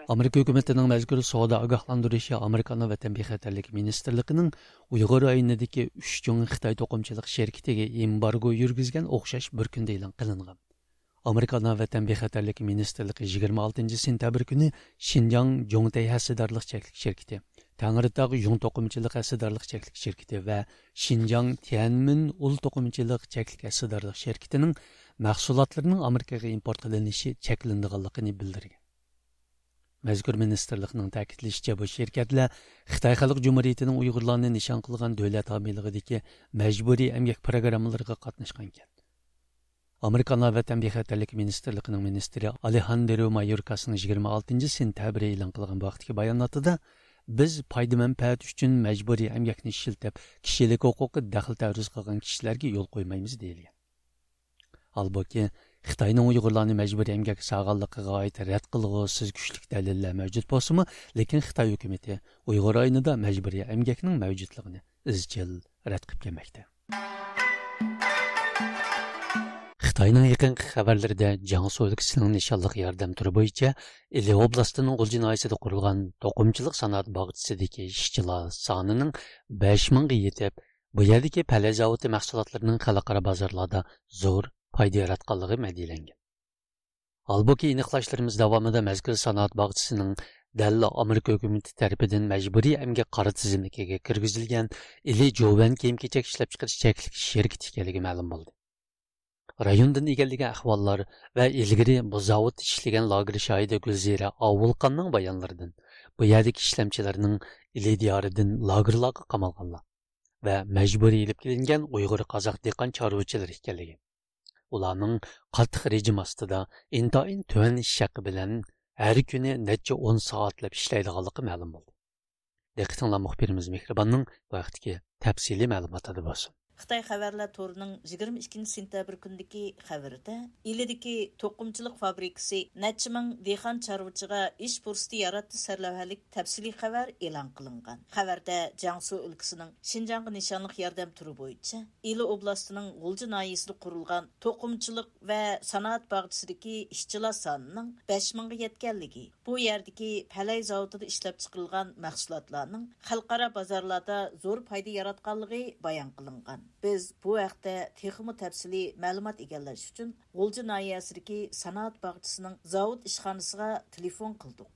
ئامېرىكا ھۆكۈمىتىنىڭ مەزكۇر سودا ئاگاھلاندۇرۇشى ئامېرىكانىڭ ۋەتەن بىخەتەرلىكى مىنىستىرلىقىنىڭ ئۇيغۇر رايونىدىكى ئۈچ چوڭ خىتاي توقۇمىچىلىق شىركىتىگە ئېمبارگو يۈرگۈزگەن ئوخشاش بىر كۈندە ئېلان قىلىنغان. ئامېرىكا ئانا ۋەتەن بىخەتەرلىكى مىنىستىرلىقى يىگىرمە ئالتىنچى سېنتەبىر كۈنى شىنجاڭ جوڭتەي ھەسسىدارلىق چەكلىك شىركىتى، تەڭرىتاغ يۇڭ توقۇمىچىلىق ھەسسىدارلىق چەكلىك شىركىتى ۋە شىنجاڭ تيەنمىن ئۇل توقۇمىچىلىق چەكلىك ھەسسىدارلىق شىركىتىنىڭ مەھسۇلاتلىرىنىڭ ئامېرىكىغا ئىمپورت قىلىنىشى چەكلىنىدىغانلىقىنى بىلدۈرگەن. مەزكۇر مىنىستىرلىقنىڭ تەكىتلىشىچە، بۇ شىركەتلەر خىتاي خەلق جۇمھۇرىيىتىنىڭ ئۇيغۇرلارنى نىشان قىلغان دۆلەت ھامىيلىقىدىكى مەجبۇرىي ئەمگەك پىروگراممىلىرىغا قاتناشقان ئىكەن. ئامېرىكا ئانا ۋەتەن بىخەتەرلىكى مىنىستىرلىقىنىڭ مىنىستىرى ئالېھاندرو مايوركاسنىڭ يىگىرمە ئالتىنچى سېنتەبىر ئېلان قىلغان بۇ ھەقتىكى باياناتىدا، بىز پايدا مەنپەئەت ئۈچۈن مەجبۇرىي ئەمگەكنى ئىشلىتىپ، كىشىلىك ھوقۇققا دەخلى تەرۇز قىلغان كىشىلەرگە يول قويمايمىز، دېيىلگەن. ھالبۇكى، خىتاينىڭ ئۇيغۇرلارنى مەجبۇرىي ئەمگەككە سالغانلىقىغا ئائىت رەت قىلغۇسىز كۈچلۈك دەلىللەر مەۋجۇت بولسىمۇ، لېكىن خىتاي ھۆكۈمىتى ئۇيغۇر رايونىدا مەجبۇرىي ئەمگەكنىڭ مەۋجۇتلۇقىنى ئىزچىل رەت قىلىپ كەلمەكتە. خىتاينىڭ يېقىنقى خەۋەرلىرىدە جياڭسۇ ئۆلكىسىنىڭ نىشانلىق ياردەم تۈرى بويىچە ئىلى ئوبلاستىنىڭ غۇلجا ناھىيەسىدە قۇرۇلغان توقۇمىچىلىق سانائەت باغچىسىدىكى ئىشچىلار سانىنىڭ بەش مىڭغا يېتىپ، بۇ يەردىكى پەلەي زاۋۇتى مەھسۇلاتلىرىنىڭ خەلقئارا بازارلاردا زور پايدا ياراتقانلىقى مەدھىيەلەنگەن. ھالبۇكى، ئېنىقلاشلىرىمىز داۋامىدا مەزكۇر سانائەت باغچىسىنىڭ دەل ئامېرىكا ھۆكۈمىتى تەرىپىدىن مەجبۇرىي ئەمگەك قارا تىزىملىكىگە كىرگۈزۈلگەن ئىلى جوۋەن كىيىم-كېچەك ئىشلەپچىقىرىش چەكلىك شىركىتى ئىكەنلىكى مەلۇم بولدى. رايوندىن ئىگىلىگەن ئەھۋاللار ۋە ئىلگىرى بۇ زاۋۇتتا ئىشلىگەن لاگېر شاھىدى گۈلزىرە ئاۋۇلقاننىڭ بايانلىرىدىن، بۇ يەردىكى ئىشلەمچىلەرنىڭ ئىلى دىيارىدىن لاگېرلارغا قامالغانلار ۋە مەجبۇرىي ئېلىپ كېلىنگەن ئۇيغۇر قازاق دېھقان چارۋىچىلىرى ئىكەنلىكى، ئۇلارنىڭ قاتتىق رېجىم ئاستىدا، ئىنتايىن تۆۋەن ئىش ھەققى بىلەن ھەر كۈنى نەچچە ئون سائەتلەپ ئىشلەيدىغانلىقى مەلۇم بولدى. دىققىتىڭلار مۇخبىرىمىز مېھرىباننىڭ بۇ ھەقتىكى تەپسىلىي مەلۇماتىدا بولسۇن. خىتاي خەۋەرلەر تورىنىڭ يىگىرمە ئىككىنچى سېنتەبىر كۈنىدىكى خەۋىرىدە، ئىلىدىكى توقۇمىچىلىق فابرىكىسى نەچچە مىڭ دېھقان چارۋىچىغا ئىش پۇرسىتى ياراتتى سەرلەۋھەلىك تەپسىلىي خەۋەر ئېلان قىلىنغان. خەۋەردە جياڭسۇ ئۆلكىسىنىڭ شىنجاڭغا نىشانلىق ياردەم تۈرى بويىچە ئىلى ئوبلاستىنىڭ غۇلجا ناھىيەسىدە قۇرۇلغان توقۇمىچىلىق ۋە سانائەت باغچىسىدىكى ئىشچىلار سانىنىڭ بەش مىڭغا يەتكەنلىكى، بۇ يەردىكى پەلەي زاۋۇتىدا ئىشلەپچىقىرىلغان مەھسۇلاتلارنىڭ خەلقئارا بازارلاردا زور پايدا ياراتقانلىقى بايان قىلىنغان. بىز بۇ ھەقتە تېخىمۇ تەپسىلىي مەلۇمات ئىگىلەش ئۈچۈن غۇلجا ناھىيەسىدىكى سانائەت باغچىسىنىڭ زاۋۇت ئىشخانىسىغا تېلېفون قىلدۇق.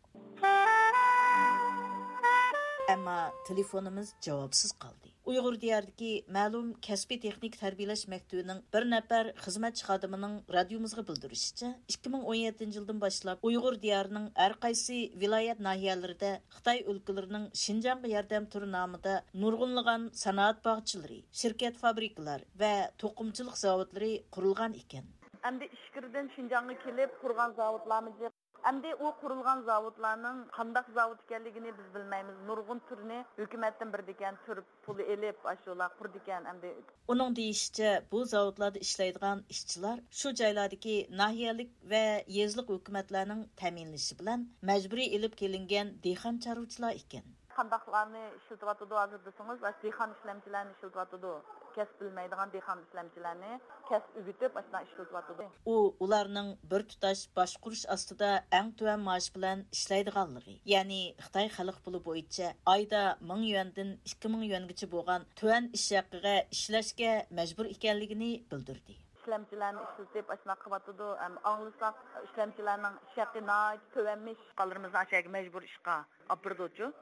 ئەمما تېلېفونىمىز جاۋابسىز قالدى. ئۇيغۇر دىيارىدىكى مەلۇم كەسپىي تېخنىكا تەربىيەلەش مەكتىۋىنىڭ بىر نەپەر خىزمەتچى خادىمىنىڭ رادىيومىزغا بىلدۈرۈشىچە، ئىككى مىڭ ئون يەتتىنچى يىلدىن باشلاپ ئۇيغۇر دىيارىنىڭ ھەر قايسى ۋىلايەت ناھىيەلىرىدە خىتاي ئۆلكىلىرىنىڭ شىنجاڭغا ياردەم تۈرى نامىدا نۇرغۇنلىغان سانائەت باغچىلىرى، شىركەت فابرىكىلار ۋە توقۇمىچىلىق زاۋۇتلىرى قۇرۇلغان ئىكەن. ئەمدى ئىچكىرىدىن شىنجاڭغا كېلىپ قۇرغان زاۋۇتلارمۇ جىق. ئەمدى ئۇ قۇرۇلغان زاۋۇتلارنىڭ قانداق زاۋۇت ئىكەنلىكىنى بىز بىلمەيمىز. نۇرغۇن تۈرنى ھۆكۈمەتتىن بېرىدىكەن، تۈر پۇلى ئېلىپ، ئاشۇلار قۇرىدىكەن ئەمدى. ئۇنىڭ دېيىشىچە، بۇ زاۋۇتلاردا ئىشلەيدىغان ئىشچىلار شۇ جايلاردىكى ناھىيەلىك ۋە يېزىلىق ھۆكۈمەتلەرنىڭ تەمىنلىشى بىلەن مەجبۇرىي ئېلىپ كېلىنگەن دېھقان چارۋىچىلار ئىكەن. قانداقلارنى ئىشلىتىۋاتىدۇ ھازىر دېسىڭىز، ئاشۇ دېھقان ئىشلەمچىلەرنى ئىشلىتىۋاتىدۇ. كەسىپ بىلمەيدىغان دېھقان ئىشلەمچىلەرنى كەسىپ ئۆگىتىپ، ئاشۇنداق ئىشلىتىۋاتىدۇ. ئۇ ئۇلارنىڭ بىر تۇتاش باشقۇرۇش ئاستىدا ئەڭ تۆۋەن مائاش بىلەن ئىشلەيدىغانلىقى، يەنى خىتاي خەلق پۇلى بويىچە ئايدا مىڭ يۈەندىن ئىككى مىڭ يۈەنگىچە بولغان تۆۋەن ئىش ھەققىگە ئىشلەشكە مەجبۇر ئىكەنلىكىنى بىلدۈردى. ئىشلەمچىلەرنى ئىشلىتىپ، ئاشۇنداق قىلىۋاتىدۇ. ئەم، ئاڭلىساق، ئىشلەمچىلەرنىڭ ئىش ھەققى ناھايىتى تۆۋەنمىش. بالىلىرىمىزنى ئاشۇ يەرگە مەجبۇر ئىشقا ئاپىرىدۇچۇ.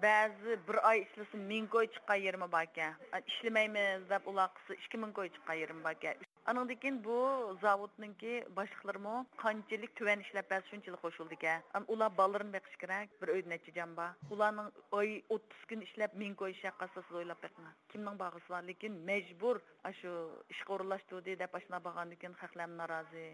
بەزى بىر ئاي ئىشلىسا مىڭ كوي چىققان يېرىمۇ باركەن. ئىشلىمەيمىز دەپ ئۇلار قىلسا ئىككى مىڭ كوي چىققان يېرىمۇ باركەن. ئانىڭدىن كېيىن بۇ زاۋۇتنىڭكى باشلىقلىرىمۇ قانچىلىك تۆۋەن ئىشلەپ بەرسە شۇنچىلىك قوشۇلىدىكەن. ئەم، ئۇلار بالىلىرىنى بېقىشى كېرەك. بىر ئۆيدە نەچچە جان بار. ئۇلارنىڭ ئاي ئوتتۇز كۈن ئىشلەپ مىڭ كوي ئىش ھەققى ئالسا سىز ئويلاپ بېقىڭ. كىمنىڭ بارغۇسى بار؟ لېكىن مەجبۇر ئاشۇ ئىشقا ئورۇنلاشتۇردى دەپ ئاشۇنداق بارغاندىن كېيىن خەقلەرمۇ نارازى.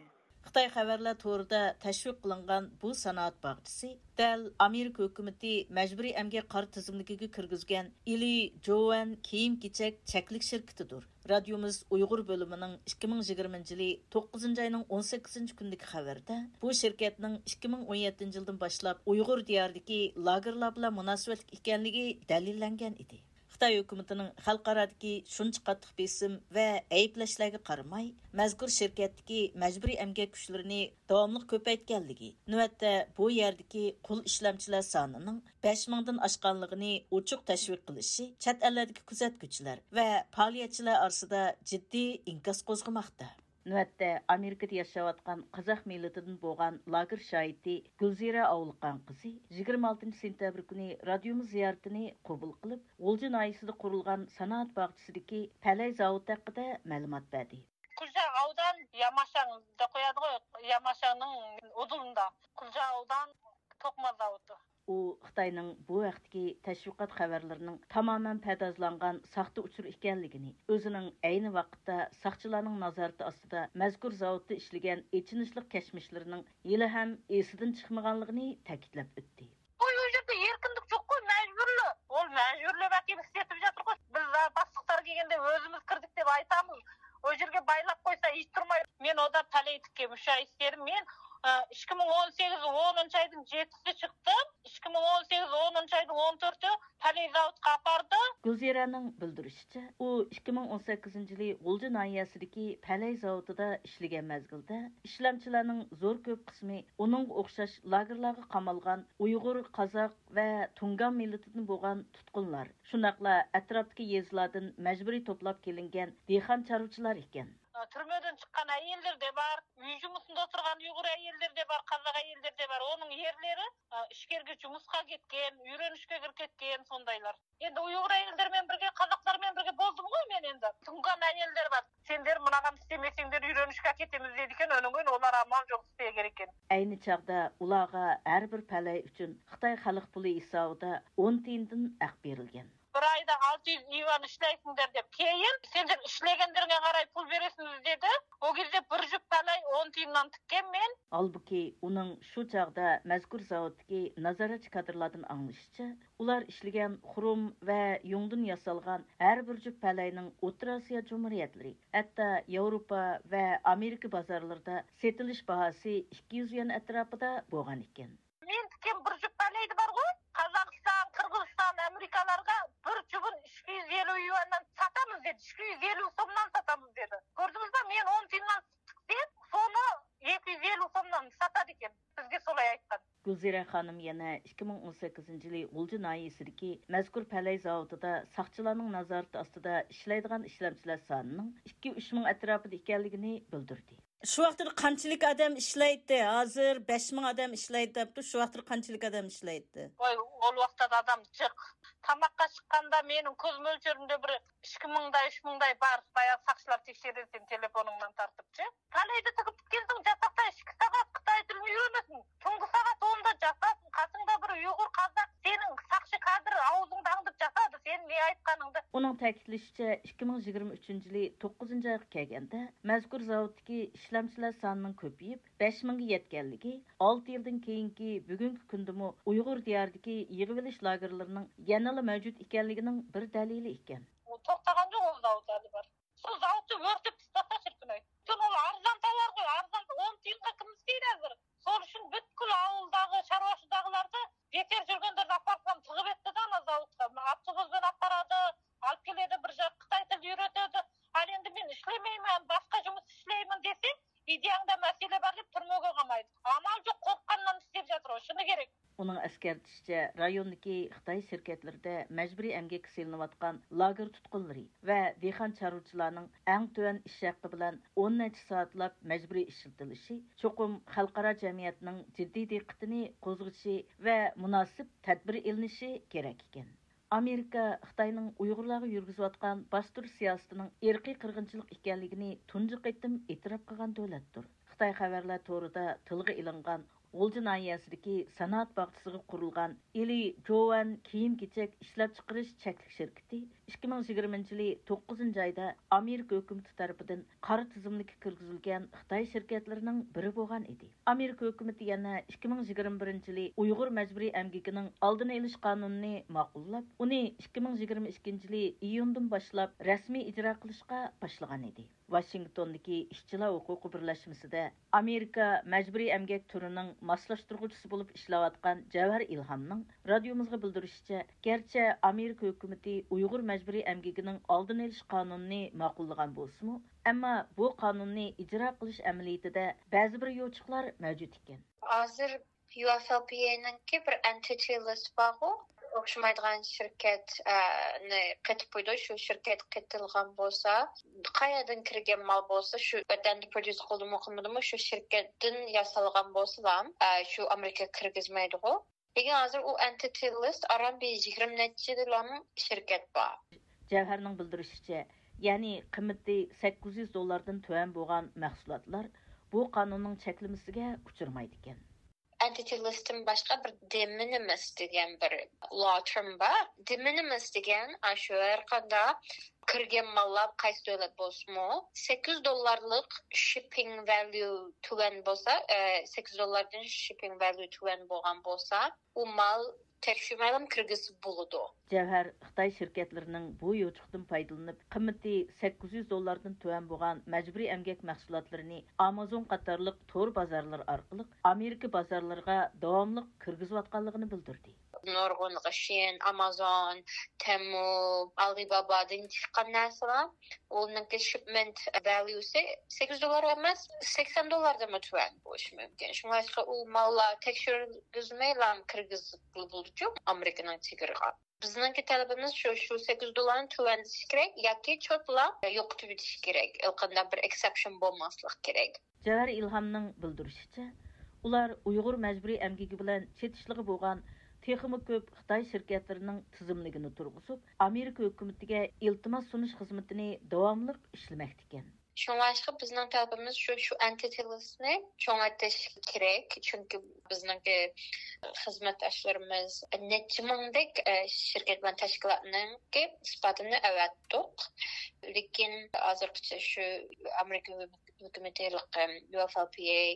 خىتاي خەۋەرلەر تورىدا تەشۋىق قىلىنغان بۇ سانائەت باغچىسى دەل ئامېرىكا ھۆكۈمىتى مەجبۇرىي ئەمگەك قارا تىزىملىكىگە كىرگۈزگەن ئىلى جوۋەن كىيىم-كېچەك چەكلىك شىركىتىدۇر. رادىيومىز ئۇيغۇر بۆلۈمىنىڭ ئىككى مىڭ يىگىرمىنچى يىلى توققۇزىنچى ئاينىڭ ئون سەككىزىنچى كۈنىدىكى خەۋىرىدە بۇ شىركەتنىڭ ئىككى مىڭ ئون يەتتىنچى يىلدىن باشلاپ ئۇيغۇر دىيارىدىكى لاگېرلار بىلەن مۇناسىۋەتلىك ئىكەنلىكى دەلىللەنگەن ئىدى. خىتاي ھۆكۈمىتىنىڭ خەلقئارادىكى شۇنچە قاتتىق بېسىم ۋە ئەيىبلەشلەرگە قارىماي، مەزكۇر شىركەتتىكى مەجبۇرىي ئەمگەك كۈچلىرىنى داۋاملىق كۆپەيتكەنلىكى، نۆۋەتتە بۇ يەردىكى قۇل ئىشلەمچىلەر سانىنىڭ بەش مىڭدىن ئاشقانلىقىنى ئوچۇق تەشۋىق قىلىشى چەت ئەللەردىكى كۆزەتكۈچىلەر ۋە پائالىيەتچىلەر ئارىسىدا جىددىي ئىنكاس قوزغىماقتا. نۆۋەتتە ئامېرىكىدا ياشاۋاتقان قازاق مىللىتىدىن بولغان لاگېر شاھىتى گۈلزىرە ئاۋۇلقان قىزى يىگىرمە ئالتىنچى سېنتەبىر كۈنى رادىيومىز زىيارىتىنى قوبۇل قىلىپ، غۇلجا ناھىيەسىدە قۇرۇلغان سانائەت باغچىسىدىكى پەلەي زاۋۇتى ھەققىدە مەلۇمات بەردى. Kulca Avdan Yamaşan da koyardı, Yamaşan'ın odulunda. Kulca Avdan Tokma Zavutu. ئۇ خىتاينىڭ بۇ ھەقتىكى تەشۋىقات خەۋەرلىرىنىڭ تامامەن پەردازلانغان ساختا ئۇچۇر ئىكەنلىكىنى، ئۆزىنىڭ ئەينى ۋاقىتتا ساقچىلارنىڭ نازارىتى ئاستىدا مەزكۇر زاۋۇتتا ئىشلىگەن ئېچىنىشلىق كەچمىشلىرىنىڭ ھېلىھەم ئېسىدىن چىقمىغانلىقىنى تەكىتلەپ ئۆتتى. قوي، ئۇ يەردە ئەركىنلىك جوق قوي، مەجبۇرلۇق. ئۇ مەجبۇرلۇق ئەكىپ ئىشلىتىپ ياتىدىغۇ. بىز باشلىقلار كەلگەندە ئۆزىمىز كىردۇق دەپ ئېيتىمىز. ئۇ يەرگە بايلاپ قويسا ھېچ تۇرمايدۇ. مەن ئۇدا پەلەي تىككەن مۇشۇ ئىشلىرىم. مەن ئىككى مىڭ ئون سەككىز ئونىنچى ئاينىڭ يەتتىسىدە چىقتىم. ئىككى مىڭ ئون سەككىز ئونىنچى ئاينىڭ ئون تۆتى پەلەي زاۋۇتقا ئاپاردى. گۈلزىرەنىڭ بىلدۈرۈشىچە، ئۇ ئىككى مىڭ ئون سەككىزىنچى يىلى غۇلجا ناھىيەسىدىكى پەلەي زاۋۇتىدا ئىشلىگەن مەزگىلدە، ئىشلەمچىلەرنىڭ زور كۆپ قىسمى ئۇنىڭغا ئوخشاش لاگېرلارغا قامالغان ئۇيغۇر، قازاق ۋە تۇڭگان مىللىتىدىن بولغان تۇتقۇنلار، شۇنداقلا ئەتراپتىكى يېزىلاردىن مەجبۇرىي توپلاپ كېلىنگەن دېھقان چارۋىچىلار ئىكەن. تۈرمىدىن چىققان ئەيەللەر دە بار، ئۆي جۇمۇسىندا تۇرغان ئۇيغۇر ئەيەللىرى دە بار، قازاق ئەيەللىرى دە بار. ئۇنىڭ ئەرلىرى ئىچكەرگە جۇمۇسقا كەتكەن، ئۆگىنىشكە كىرىپ كەتكەن، سوندايلار. ئەمدى ئۇيغۇر ئەيەللىرى بىلەن بىرگە، قازاقلار بىلەن بىرگە بولدۇمغۇ مەن ئەمدى. تۇڭگان ئەيەللەر بار. سەن دەر مۇناغان ئىشلىمىسەڭ دەر، ئۆگىنىشكە كېتىمىز دەيدىكەن، ئۇنىڭ ئۈچۈن ئۇلار ئامال جوق ئىشلەيدىكەن. ئەينى چاغدا ئۇلارغا ھەر بىر پەلەي ئۈچۈن خىتاي خەلق پۇلى ھېسابىدا ئون تىيىندىن ھەق بېرىلگەن. بىر ئايدا ئالتە يۈز يۈەن ئىشلەيسەن دەپ، كېيىن سەن ئىشلىگەنلىرىڭگە قاراپ پۇل بېرىسىز دېدى. ئۇ گېزى بىر جۈپ پەلەي ئون تىيىندىن تىككەن مەن. ھالبۇكى، ئۇنىڭ شۇ چاغدا مەزكۇر زاۋۇتتىكى نازارەتچى كادىرلاردىن ئاڭلىشىچە، ئۇلار ئىشلىگەن خۇرۇم ۋە يۇڭدىن ياسالغان ھەر بىر جۈپ پەلەينىڭ ئوتتۇرا ئاسىيا جۇمھۇرىيەتلىرى، ھەتتا ياۋروپا ۋە ئامېرىكا بازارلىرىدا سېتىلىش باھاسى ئىككى يۈز يۈەن ئەتراپىدا بولغان ئىكەن. مېنىڭكى بىر جۈپ پەلەيدە بارغۇ، قازاقىستان، قىرغىزىستان، ئامېرىكالارغا بىر جۈپىنى ئىككى يۈز ئەللىك يۈەندىن ساتىمىز دېدى، ئىككى يۈز ئەللىك سومدىن ساتىمىز دېدى. كۆردىڭىزمۇ، مەن ئون تىيىندىن تىكسەم، سونى ئىككى يۈز ئەللىك سومدىن ساتىدىكەن، بىزگە سولاي ئېيتقان. گۈلزىرە خانىم يەنە ئىككى مىڭ ئون سەككىزىنچى يىلى غۇلجا ناھىيەسىدىكى مەزكۇر پەلەي زاۋۇتىدا ساقچىلارنىڭ نازارىتى ئاستىدا ئىشلەيدىغان ئىشلەمچىلەر سانىنىڭ ئىككى، ئۈچ مىڭ ئەتراپىدا ئىكەنلىكىنى بىلدۈردى. شۇ ۋاقتىدا قانچىلىك ئادەم ئىشلەيتتى؟ ھازىر بەش مىڭ ئادەم ئىشلەيدۇ دەپتۇ. شۇ ۋاقتىدا قانچىلىك ئادەم ئىشلەيتتى؟ ۋاي، ئول ۋاقىتتا ئادەم جىق. تاماققا چىققاندا مېنىڭ كۆز مۆلچىرىمدە بىر ئىككى مىڭداي، ئۈچ مىڭداي بار. بايا ساقچىلار تەكشۈرىدۇ سېنى تېلېفونۇڭدىن تارتىپچى. تاللايدا تىكىپ كەلسەڭ، جاتاقتا ئىككى سائەت خىتاي تىلىنى ئۆگىنىسەن. تۇنجى سائەت ئوندا جاتاسەن، قاسىڭدا بىر ئۇيغۇر قازاق، سېنىڭ ساقچى كادىر ئاۋزىڭدا ئاڭدىپ جاتىدۇ، سېنىڭ نە ئېيتقانىڭدا. ئۇنىڭ تەكىتلىشىچە، ئىككى مىڭ يىگىرمە ئۈچىنچى يىلى توققۇزىنچى ئايغا كەلگەندە، مەزكۇر زاۋۇتتىكى ئىشلەمچىلەر سانىنىڭ كۆپىيىپ، بەش مىڭگە يەتكەنلىكى، ئالتە يىلدىن كېيىنكى بۈگۈنكى كۈندىمۇ ئۇيغۇر دىيارىدىكى يىغىۋېلىش لاگېرلىرىنىڭ يەنىلا مەۋجۇت ئىكەنلىكىنىڭ بىر دەلىلى ئىكەن. توختىغان جۇق ئۇ زاۋۇت ھېلى بار. شۇ زاۋۇتنى ئۆرتەپ تاشلاپ چىرپىناي. شۇ ئۇل ئارزان تاۋارغۇ، ئارزان ئون تىيىنغا كىم ئىشلەيدۇ ھازىر؟ شۇ ئۈچۈن پۈتكۈل ئاۋۇلداغۇ، شارۋاشىداغۇلاردا بىكار يۈرگەنلەرنى ئاپارسام تىغىپ ئەتتىدە ئانا زاۋۇتقا. ئاپتوبۇس بىلەن ئاپارىدۇ، ئاپ كېلىدۇ، بىر جاق خىتاي تىلى ئۆگىتىدۇ. ھالى ئەمدى مەن ئىشلىمەيمەن، باشقا جۇمۇس ئىشلەيمەن دېسە، ئىدىيەڭدە مەسىلە بار دەپ تۈرمىگە قامايدۇ. ئامال جۇق، قورققاندىن ئىشلەپ ياتىدۇ، شۇنى كېرەك. ئۇنىڭ ئەسكەرتىشىچە، رايوندىكى خىتاي شىركەتلىرىدە مەجبۇرىي ئەمگەككە سېلىنىۋاتقان لاگېر تۇتقۇنلىرى ۋە دېھقان چارۋىچىلارنىڭ ئەڭ تۆۋەن ئىش ھەققى بىلەن ئون نەچچە سائەتلاپ مەجبۇرىي ئىشلىتىلىشى چوقۇم خەلقئارا جەمئىيەتنىڭ جىددىي دىققىتىنى قوزغىشى ۋە مۇناسىپ تەدبىر ئېلىنىشى كېرەك ئىكەن. ئامېرىكا خىتاينىڭ ئۇيغۇرلارغا يۈرگۈزۈۋاتقان باستۇرۇش سىياسىتىنىڭ ئىرقىي قىرغىنچىلىق ئىكەنلىكىنى تۇنجى قېتىم ئېتىراپ قىلغان دۆلەتتۇر. خىتاي خەۋەرلەر تورىدا تىلغا ئېلىنغان غۇلجا ناھىيەسىدىكى سانائەت باغچىسىغا قۇرۇلغان ئىلى جوۋەن كىيىم-كېچەك ئىشلەپچىقىرىش چەكلىك شىركىتى ئىككى مىڭ يىگىرمىنچى يىلى توققۇزىنچى ئايدا ئامېرىكا ھۆكۈمىتى تەرىپىدىن قارا تىزىملىككە كىرگۈزۈلگەن خىتاي شىركەتلىرىنىڭ بىرى بولغان ئىدى. ئامېرىكا ھۆكۈمىتى يەنە ئىككى مىڭ يىگىرمە بىرىنچى يىلى ئۇيغۇر مەجبۇرىي ئەمگىكىنىڭ ئالدىنى ئېلىش قانۇنىنى ماقۇللاپ، ئۇنى ئىككى مىڭ يىگىرمە ئىككىنچى يىلى ئىيۇندىن باشلاپ رەسمىي ئىجرا قىلىشقا باشلىغان ئىدى. ۋاشىنگتوندىكى ئىشچىلار ھوقۇقى بىرلەشمىسىدە ئامېرىكا مەجبۇرىي ئەمگەك تۈرىنىڭ ماسلاشتۇرغۇچىسى بولۇپ ئىشلەۋاتقان جەۋھەر ئىلھامنىڭ رادىيومىزغا بىلدۈرۈشىچە، گەرچە ئامېرىكا ھۆكۈمىتى ئۇيغۇر مەجبۇرىي ئەمگىكىنىڭ ئالدىنى ئېلىش قانۇنىنى ماقۇللىغان بولسىمۇ، ئەمما بۇ قانۇننى ئىجرا قىلىش ئەمەلىيىتىدە بەزى بىر يوچۇقلار مەۋجۇت ئىكەن. ھازىر يۇ ئېف ئېل پى ئەينىڭكى بىر ئېنتىتى لىست بارغۇ، ئوخشىمايدىغان شىركەت، ئە، نى قېتىپ قويىدۇ. شۇ شىركەت قېتىلغان بولسا، قايەردىن كىرگەن مال بولسا، شۇ ۋەتەندە پروديۇس قىلدىمۇ قىلمىدىمۇ، شۇ شىركەتتىن ياسالغان بولسىلا، ئە، شۇ ئامېرىكىغا كىرگۈزمەيدىغۇ. لېكىن ھازىر ئۇ ئېنتىتى لىست ئاران بىر يىگىرمە نەچچىلام شىركەت بار. جەۋھەرنىڭ بىلدۈرۈشىچە، يەنى قىممىتى سەككىز يۈز دوللاردىن تۆۋەن بولغان مەھسۇلاتلار بۇ قانۇننىڭ چەكلىمىسىگە ئۇچرىمايدىكەن. ئېنتىتى لىستتىن باشقا بىر دېمىنىمىس دېگەن بىر لا تېرم بار. دېمىنىمىس دېگەن ئاشۇ ھەر قانداق كىرگەن ماللار قايسى دۆلەت بولسىمۇ، سەككىز يۈز دوللارلىق شىپپىڭ ۋەليۇ تۆۋەن بولسا، ئە، سەككىز يۈز دوللاردىن شىپپىڭ ۋەليۇ تۆۋەن بولغان بولسا، ئۇ مال تەكشۈرمەيلا كىرگۈزسە بولىدۇ. جەۋھەر خىتاي شىركەتلىرىنىڭ بۇ يوچۇقتىن پايدىلىنىپ، قىممىتى سەككىز يۈز دوللاردىن تۆۋەن بولغان مەجبۇرىي ئەمگەك مەھسۇلاتلىرىنى ئامازون قاتارلىق تور بازارلىرى ئارقىلىق ئامېرىكا بازارلىرىغا داۋاملىق كىرگۈزۈۋاتقانلىقىنى بىلدۈردى. نۇرغۇنلىغى شىن، ئامازون، تېمۇ، ئالىبابادىن چىققان نەرسىلەر. ئۇنىڭكى شىپمېنت ۋەليۇسى سەككىز يۈز دوللار ئەمەس، سەكسەن دوللاردىنمۇ تۆۋەن بولۇشى مۇمكىن. شۇڭلاشقا ئۇ ماللار تەكشۈرگۈزمەيلا كىرگۈزۈپ بولىدۇ ئامېرىكىنىڭ چېگرىغا. بىزنىڭكى تەلىپىمىز شۇ، شۇ سەككىز يۈز دوللارنى تۆۋەنلىتىش كېرەك ياكى چوتلا يوقىتىۋېتىش كېرەك. ھېچقانداق بىر ئېكسېپشن بولماسلىق كېرەك. جەۋھەر ئىلھامنىڭ بىلدۈرۈشىچە، ئۇلار ئۇيغۇر مەجبۇرىي ئەمگىكى بىلەن چېتىشلىقى بولغان تېخىمۇ كۆپ خىتاي شىركەتلىرىنىڭ تىزىملىكىنى تۇرغۇزۇپ، ئامېرىكا ھۆكۈمىتىگە ئىلتىماس سۇنۇش خىزمىتىنى داۋاملىق ئىشلىمەكتىكەن. شۇڭلاشقا بىزنىڭ تەلىپىمىز شۇ، شۇ ئېنتىتى لىستنى چوڭايتىش كېرەك. چۈنكى بىزنىڭكى خىزمەتداشلىرىمىز نەچچە مىڭدەك، ئە، شىركەت بىلەن تەشكىلاتنىڭكى ئىسپاتىنى ئەۋەتتۇق. لېكىن ھازىرغىچە شۇ ئامېرىكا ھۆكۈمىتى يۇ ئېف ئېل پى ئەي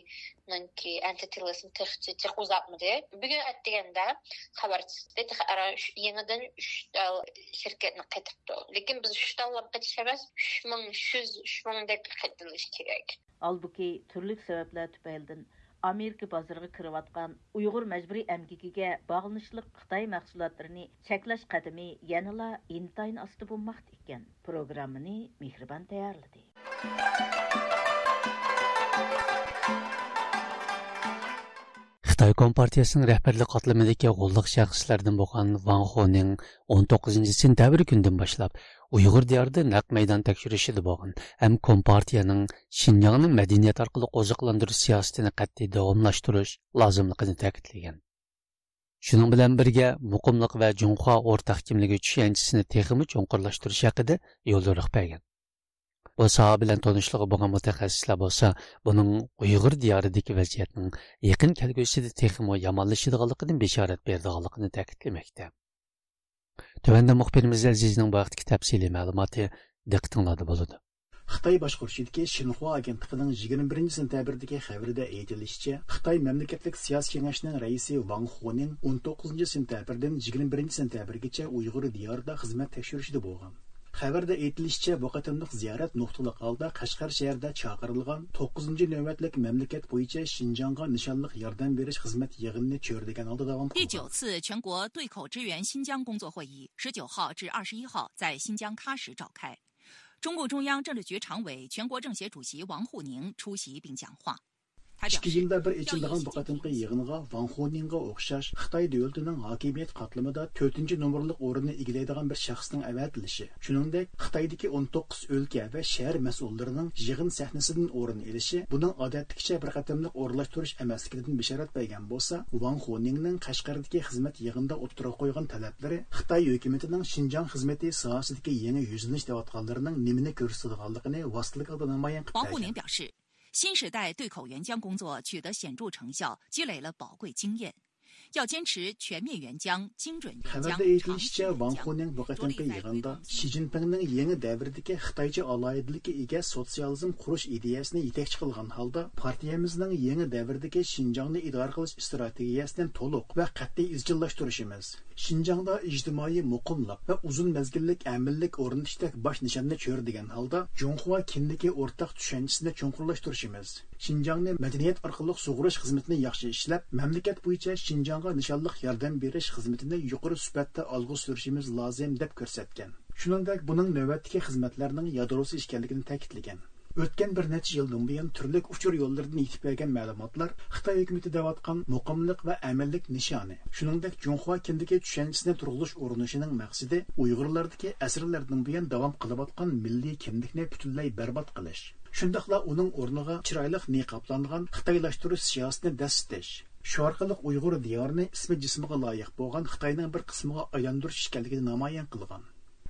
نىڭكى ئېنتىتى لىستىنى تېخىچە جىق ئۇزارتمىدى. بۈگۈن ئەتىگەندە خەۋەر چىقتى، تېخى ئاران ئۈچ، يېڭىدىن ئۈچ تال شىركەتنى قېتىپتۇ. لېكىن بىز ئۈچ تاللاپ قېتىش ئەمەس، ئۈچ مىڭ يۈز، ئۈچ مىڭدەك قېتىلىش كېرەك. ھالبۇكى، تۈرلۈك سەۋەبلەر تۈپەيلىدىن ئامېرىكا بازىرىغا كىرىۋاتقان ئۇيغۇر مەجبۇرىي ئەمگىكىگە باغلىنىشلىق خىتاي مەھسۇلاتلىرىنى چەكلەش قەدىمى يەنىلا ئىنتايىن ئاستا بولماقتا ئىكەن. پروگراممىنى مېھرىبان تەييارلىدى. خىتاي كومپارتىيەسىنىڭ رەھبەرلىك قاتلىمىدىكى غوللۇق شەخسلەردىن بولغان ۋاڭ خونىڭ ئون توققۇزىنچى سېنتەبىر كۈنىدىن باشلاپ ئۇيغۇر دىيارىدا نەق مەيدان تەكشۈرۈشىدە بولغان ھەم كومپارتىيەنىڭ شىنجاڭنى مەدەنىيەت ئارقىلىق ئوزۇقلاندۇرۇش سىياسىتىنى قەتئىي داۋاملاشتۇرۇش لازىملىقىنى تەكىتلىگەن. شۇنىڭ بىلەن بىرگە، مۇقىملىق ۋە جۇڭخۇا ئورتاق كىملىكى چۈشەنچىسىنى تېخىمۇ چوڭقۇرلاشتۇرۇش ھەققىدە يوليورۇق بەرگەن. بۇ ساھە بىلەن تونۇشلۇقى بولغان مۇتەخەسسىسلەر بولسا، بۇنىڭ ئۇيغۇر دىيارىدىكى ۋەزىيەتنىڭ يېقىن كەلگۈسىدە تېخىمۇ يامانلىشىدىغانلىقىدىن بېشارەت بېرىدىغانلىقىنى تەكىتلىمەكتە. تۆۋەندە مۇخبىرىمىز ئەزىزنىڭ بۇ ھەقتىكى تەپسىلىي مەلۇماتى دىققىتىڭلاردا بولىدۇ. خىتاي باشقۇرۇشىدىكى شىنخۇا ئاگېنتلىقىنىڭ يىگىرمە بىرىنچى سېنتەبىردىكى خەۋىرىدە ئېيتىلىشىچە، خىتاي مەملىكەتلىك سىياسىي كېڭەشنىڭ رەئىسى ۋاڭ خۇنىڭ ئون توققۇزىنچى سېنتەبىردىن يىگىرمە بىرىنچى سېنتەبىرگىچە ئۇيغۇر دىيارىدا خىزمەت تەكشۈرۈشىدە بولغان. خەۋەردە ئېيتىلىشىچە، بۇ قېتىملىق زىيارەت نۇقتىلىق ھالدا قەشقەر شەھىرىدە چاقىرىلغان توققۇزىنچى نۆۋەتلىك مەملىكەت بويىچە شىنجاڭغا نىشانلىق ياردەم بېرىش خىزمەت يىغىنىنى چۆرىدىگەن ھالدا داۋام قىلغان. 第九次全国对口支援新疆工作会议十九号至二十一号在新疆喀什召开。中共中央政治局常委、全国政协主席王沪宁出席并讲话。他表示， ئىككى يىلدا بىر ئېچىلىدىغان بۇ قېتىمقى يىغىنغا ۋاڭ خۇنىڭغا ئوخشاش خىتاي دۆلىتىنىڭ ھاكىمىيەت قاتلىمىدا تۆتىنچى نومۇرلۇق ئورۇننى ئىگىلەيدىغان بىر شەخسنىڭ ئەۋەتىلىشى، شۇنىڭدەك خىتايدىكى ئون توققۇز ئۆلكە ۋە شەھەر مەسئۇللىرىنىڭ يىغىن سەھنىسىدىن ئورۇن ئېلىشى بۇنىڭ ئادەتتىكىچە بىر قېتىملىق ئورۇنلاشتۇرۇش ئەمەسلىكىدىن بېشارەت بەرگەن بولسا، ۋاڭ خۇنىڭنىڭ قەشقەردىكى خىزمەت يىغىنىدا ئوتتۇرىغا قويغان تەلەپلىرى خىتاي ھۆكۈمىتىنىڭ شىنجاڭ خىزمىتى ساھەسىدىكى يېڭى يۈزلىنىش دەۋاتقانلىرىنىڭ نېمىنى كۆرسىتىدىغانلىقىنى ۋاسىتىلىك ھالدا نامايان قىلىپ بەرگەن. 王沪宁表示，新时代对口援疆工作取得显著成效，积累了宝贵经验，要坚持全面援疆、精准援疆、 خەۋەردە ئېيتىلىشىچە، ۋاڭ خۇنىڭ بۇ قېتىمقى يىغىندا شى جىنپىڭنىڭ يېڭى دەۋردىكى خىتايچە ئالاھىدىلىككە ئىگە سوتسىيالىزم قۇرۇش ئىدىيەسىنى يېتەكچى قىلغان ھالدا، پارتىيەمىزنىڭ يېڭى دەۋردىكى شىنجاڭنى ئىدارە قىلىش ئىستراتېگىيەسىنى تولۇق ۋە قەتئىي ئىزچىللاشتۇرۇشىمىز، شىنجاڭدا ئىجتىمائىي مۇقىملىق ۋە ئۇزۇن مەزگىللىك ئەمىنلىك ئورنىتىشتەك باش نىشاننى چۆرىدىگەن ھالدا، جۇڭخۇا كىملىكى ئورتاق چۈشەنچىسىنى چوڭقۇرلاشتۇرۇشىمىز، شىنجاڭنى مەدەنىيەت ئارقىلىق سۇغۇرۇش خىزمىتىنى ياخشى ئىشلەپ، مەملىكەت بويىچە شىنجاڭغا نىشانلىق ياردەم بېرىش خىزمىتىنى يۇقىرى سۈپەتتە ئالغا سۈرۈشىمىز لازىم، دەپ كۆرسەتكەن. شۇنىڭدەك، بۇنىڭ نۆۋەتتىكى خىزمەتلەرنىڭ يادروسى ئىكەنلىكىنى تەكىتلىگەن. ئۆتكەن بىر نەچچە يىلدىن بۇيان تۈرلۈك ئۇچۇر يوللىرىدىن يېتىپ كەلگەن مەلۇماتلار خىتاي ھۆكۈمىتى دەۋاتقان مۇقىملىق ۋە ئەمىنلىك نىشانى، شۇنىڭدەك جۇڭخۇا كىندىكى چۈشەنچىسىنى تۇرغۇزۇش ئۇرۇنۇشىنىڭ مەقسىتى ئۇيغۇرلاردىكى ئەسىرلەردىن بۇيان داۋام قىلىۋاتقان مىللىي كىملىكنى پۈتۈنلەي بەربات قىلىش، شۇنداقلا ئۇنىڭ ئورنىغا چىرايلىق نىقابلانغان خىتايلاشتۇرۇش سىياسىتىنى دەسسىتىش، شۇ ئارقىلىق ئۇيغۇر دىيارىنى ئىسمى جىسمىغا لايىق بولغان خىتاينىڭ بىر قىسمىغا ئايلاندۇرۇش ئىكەنلىكىنى نامايان قىلغان.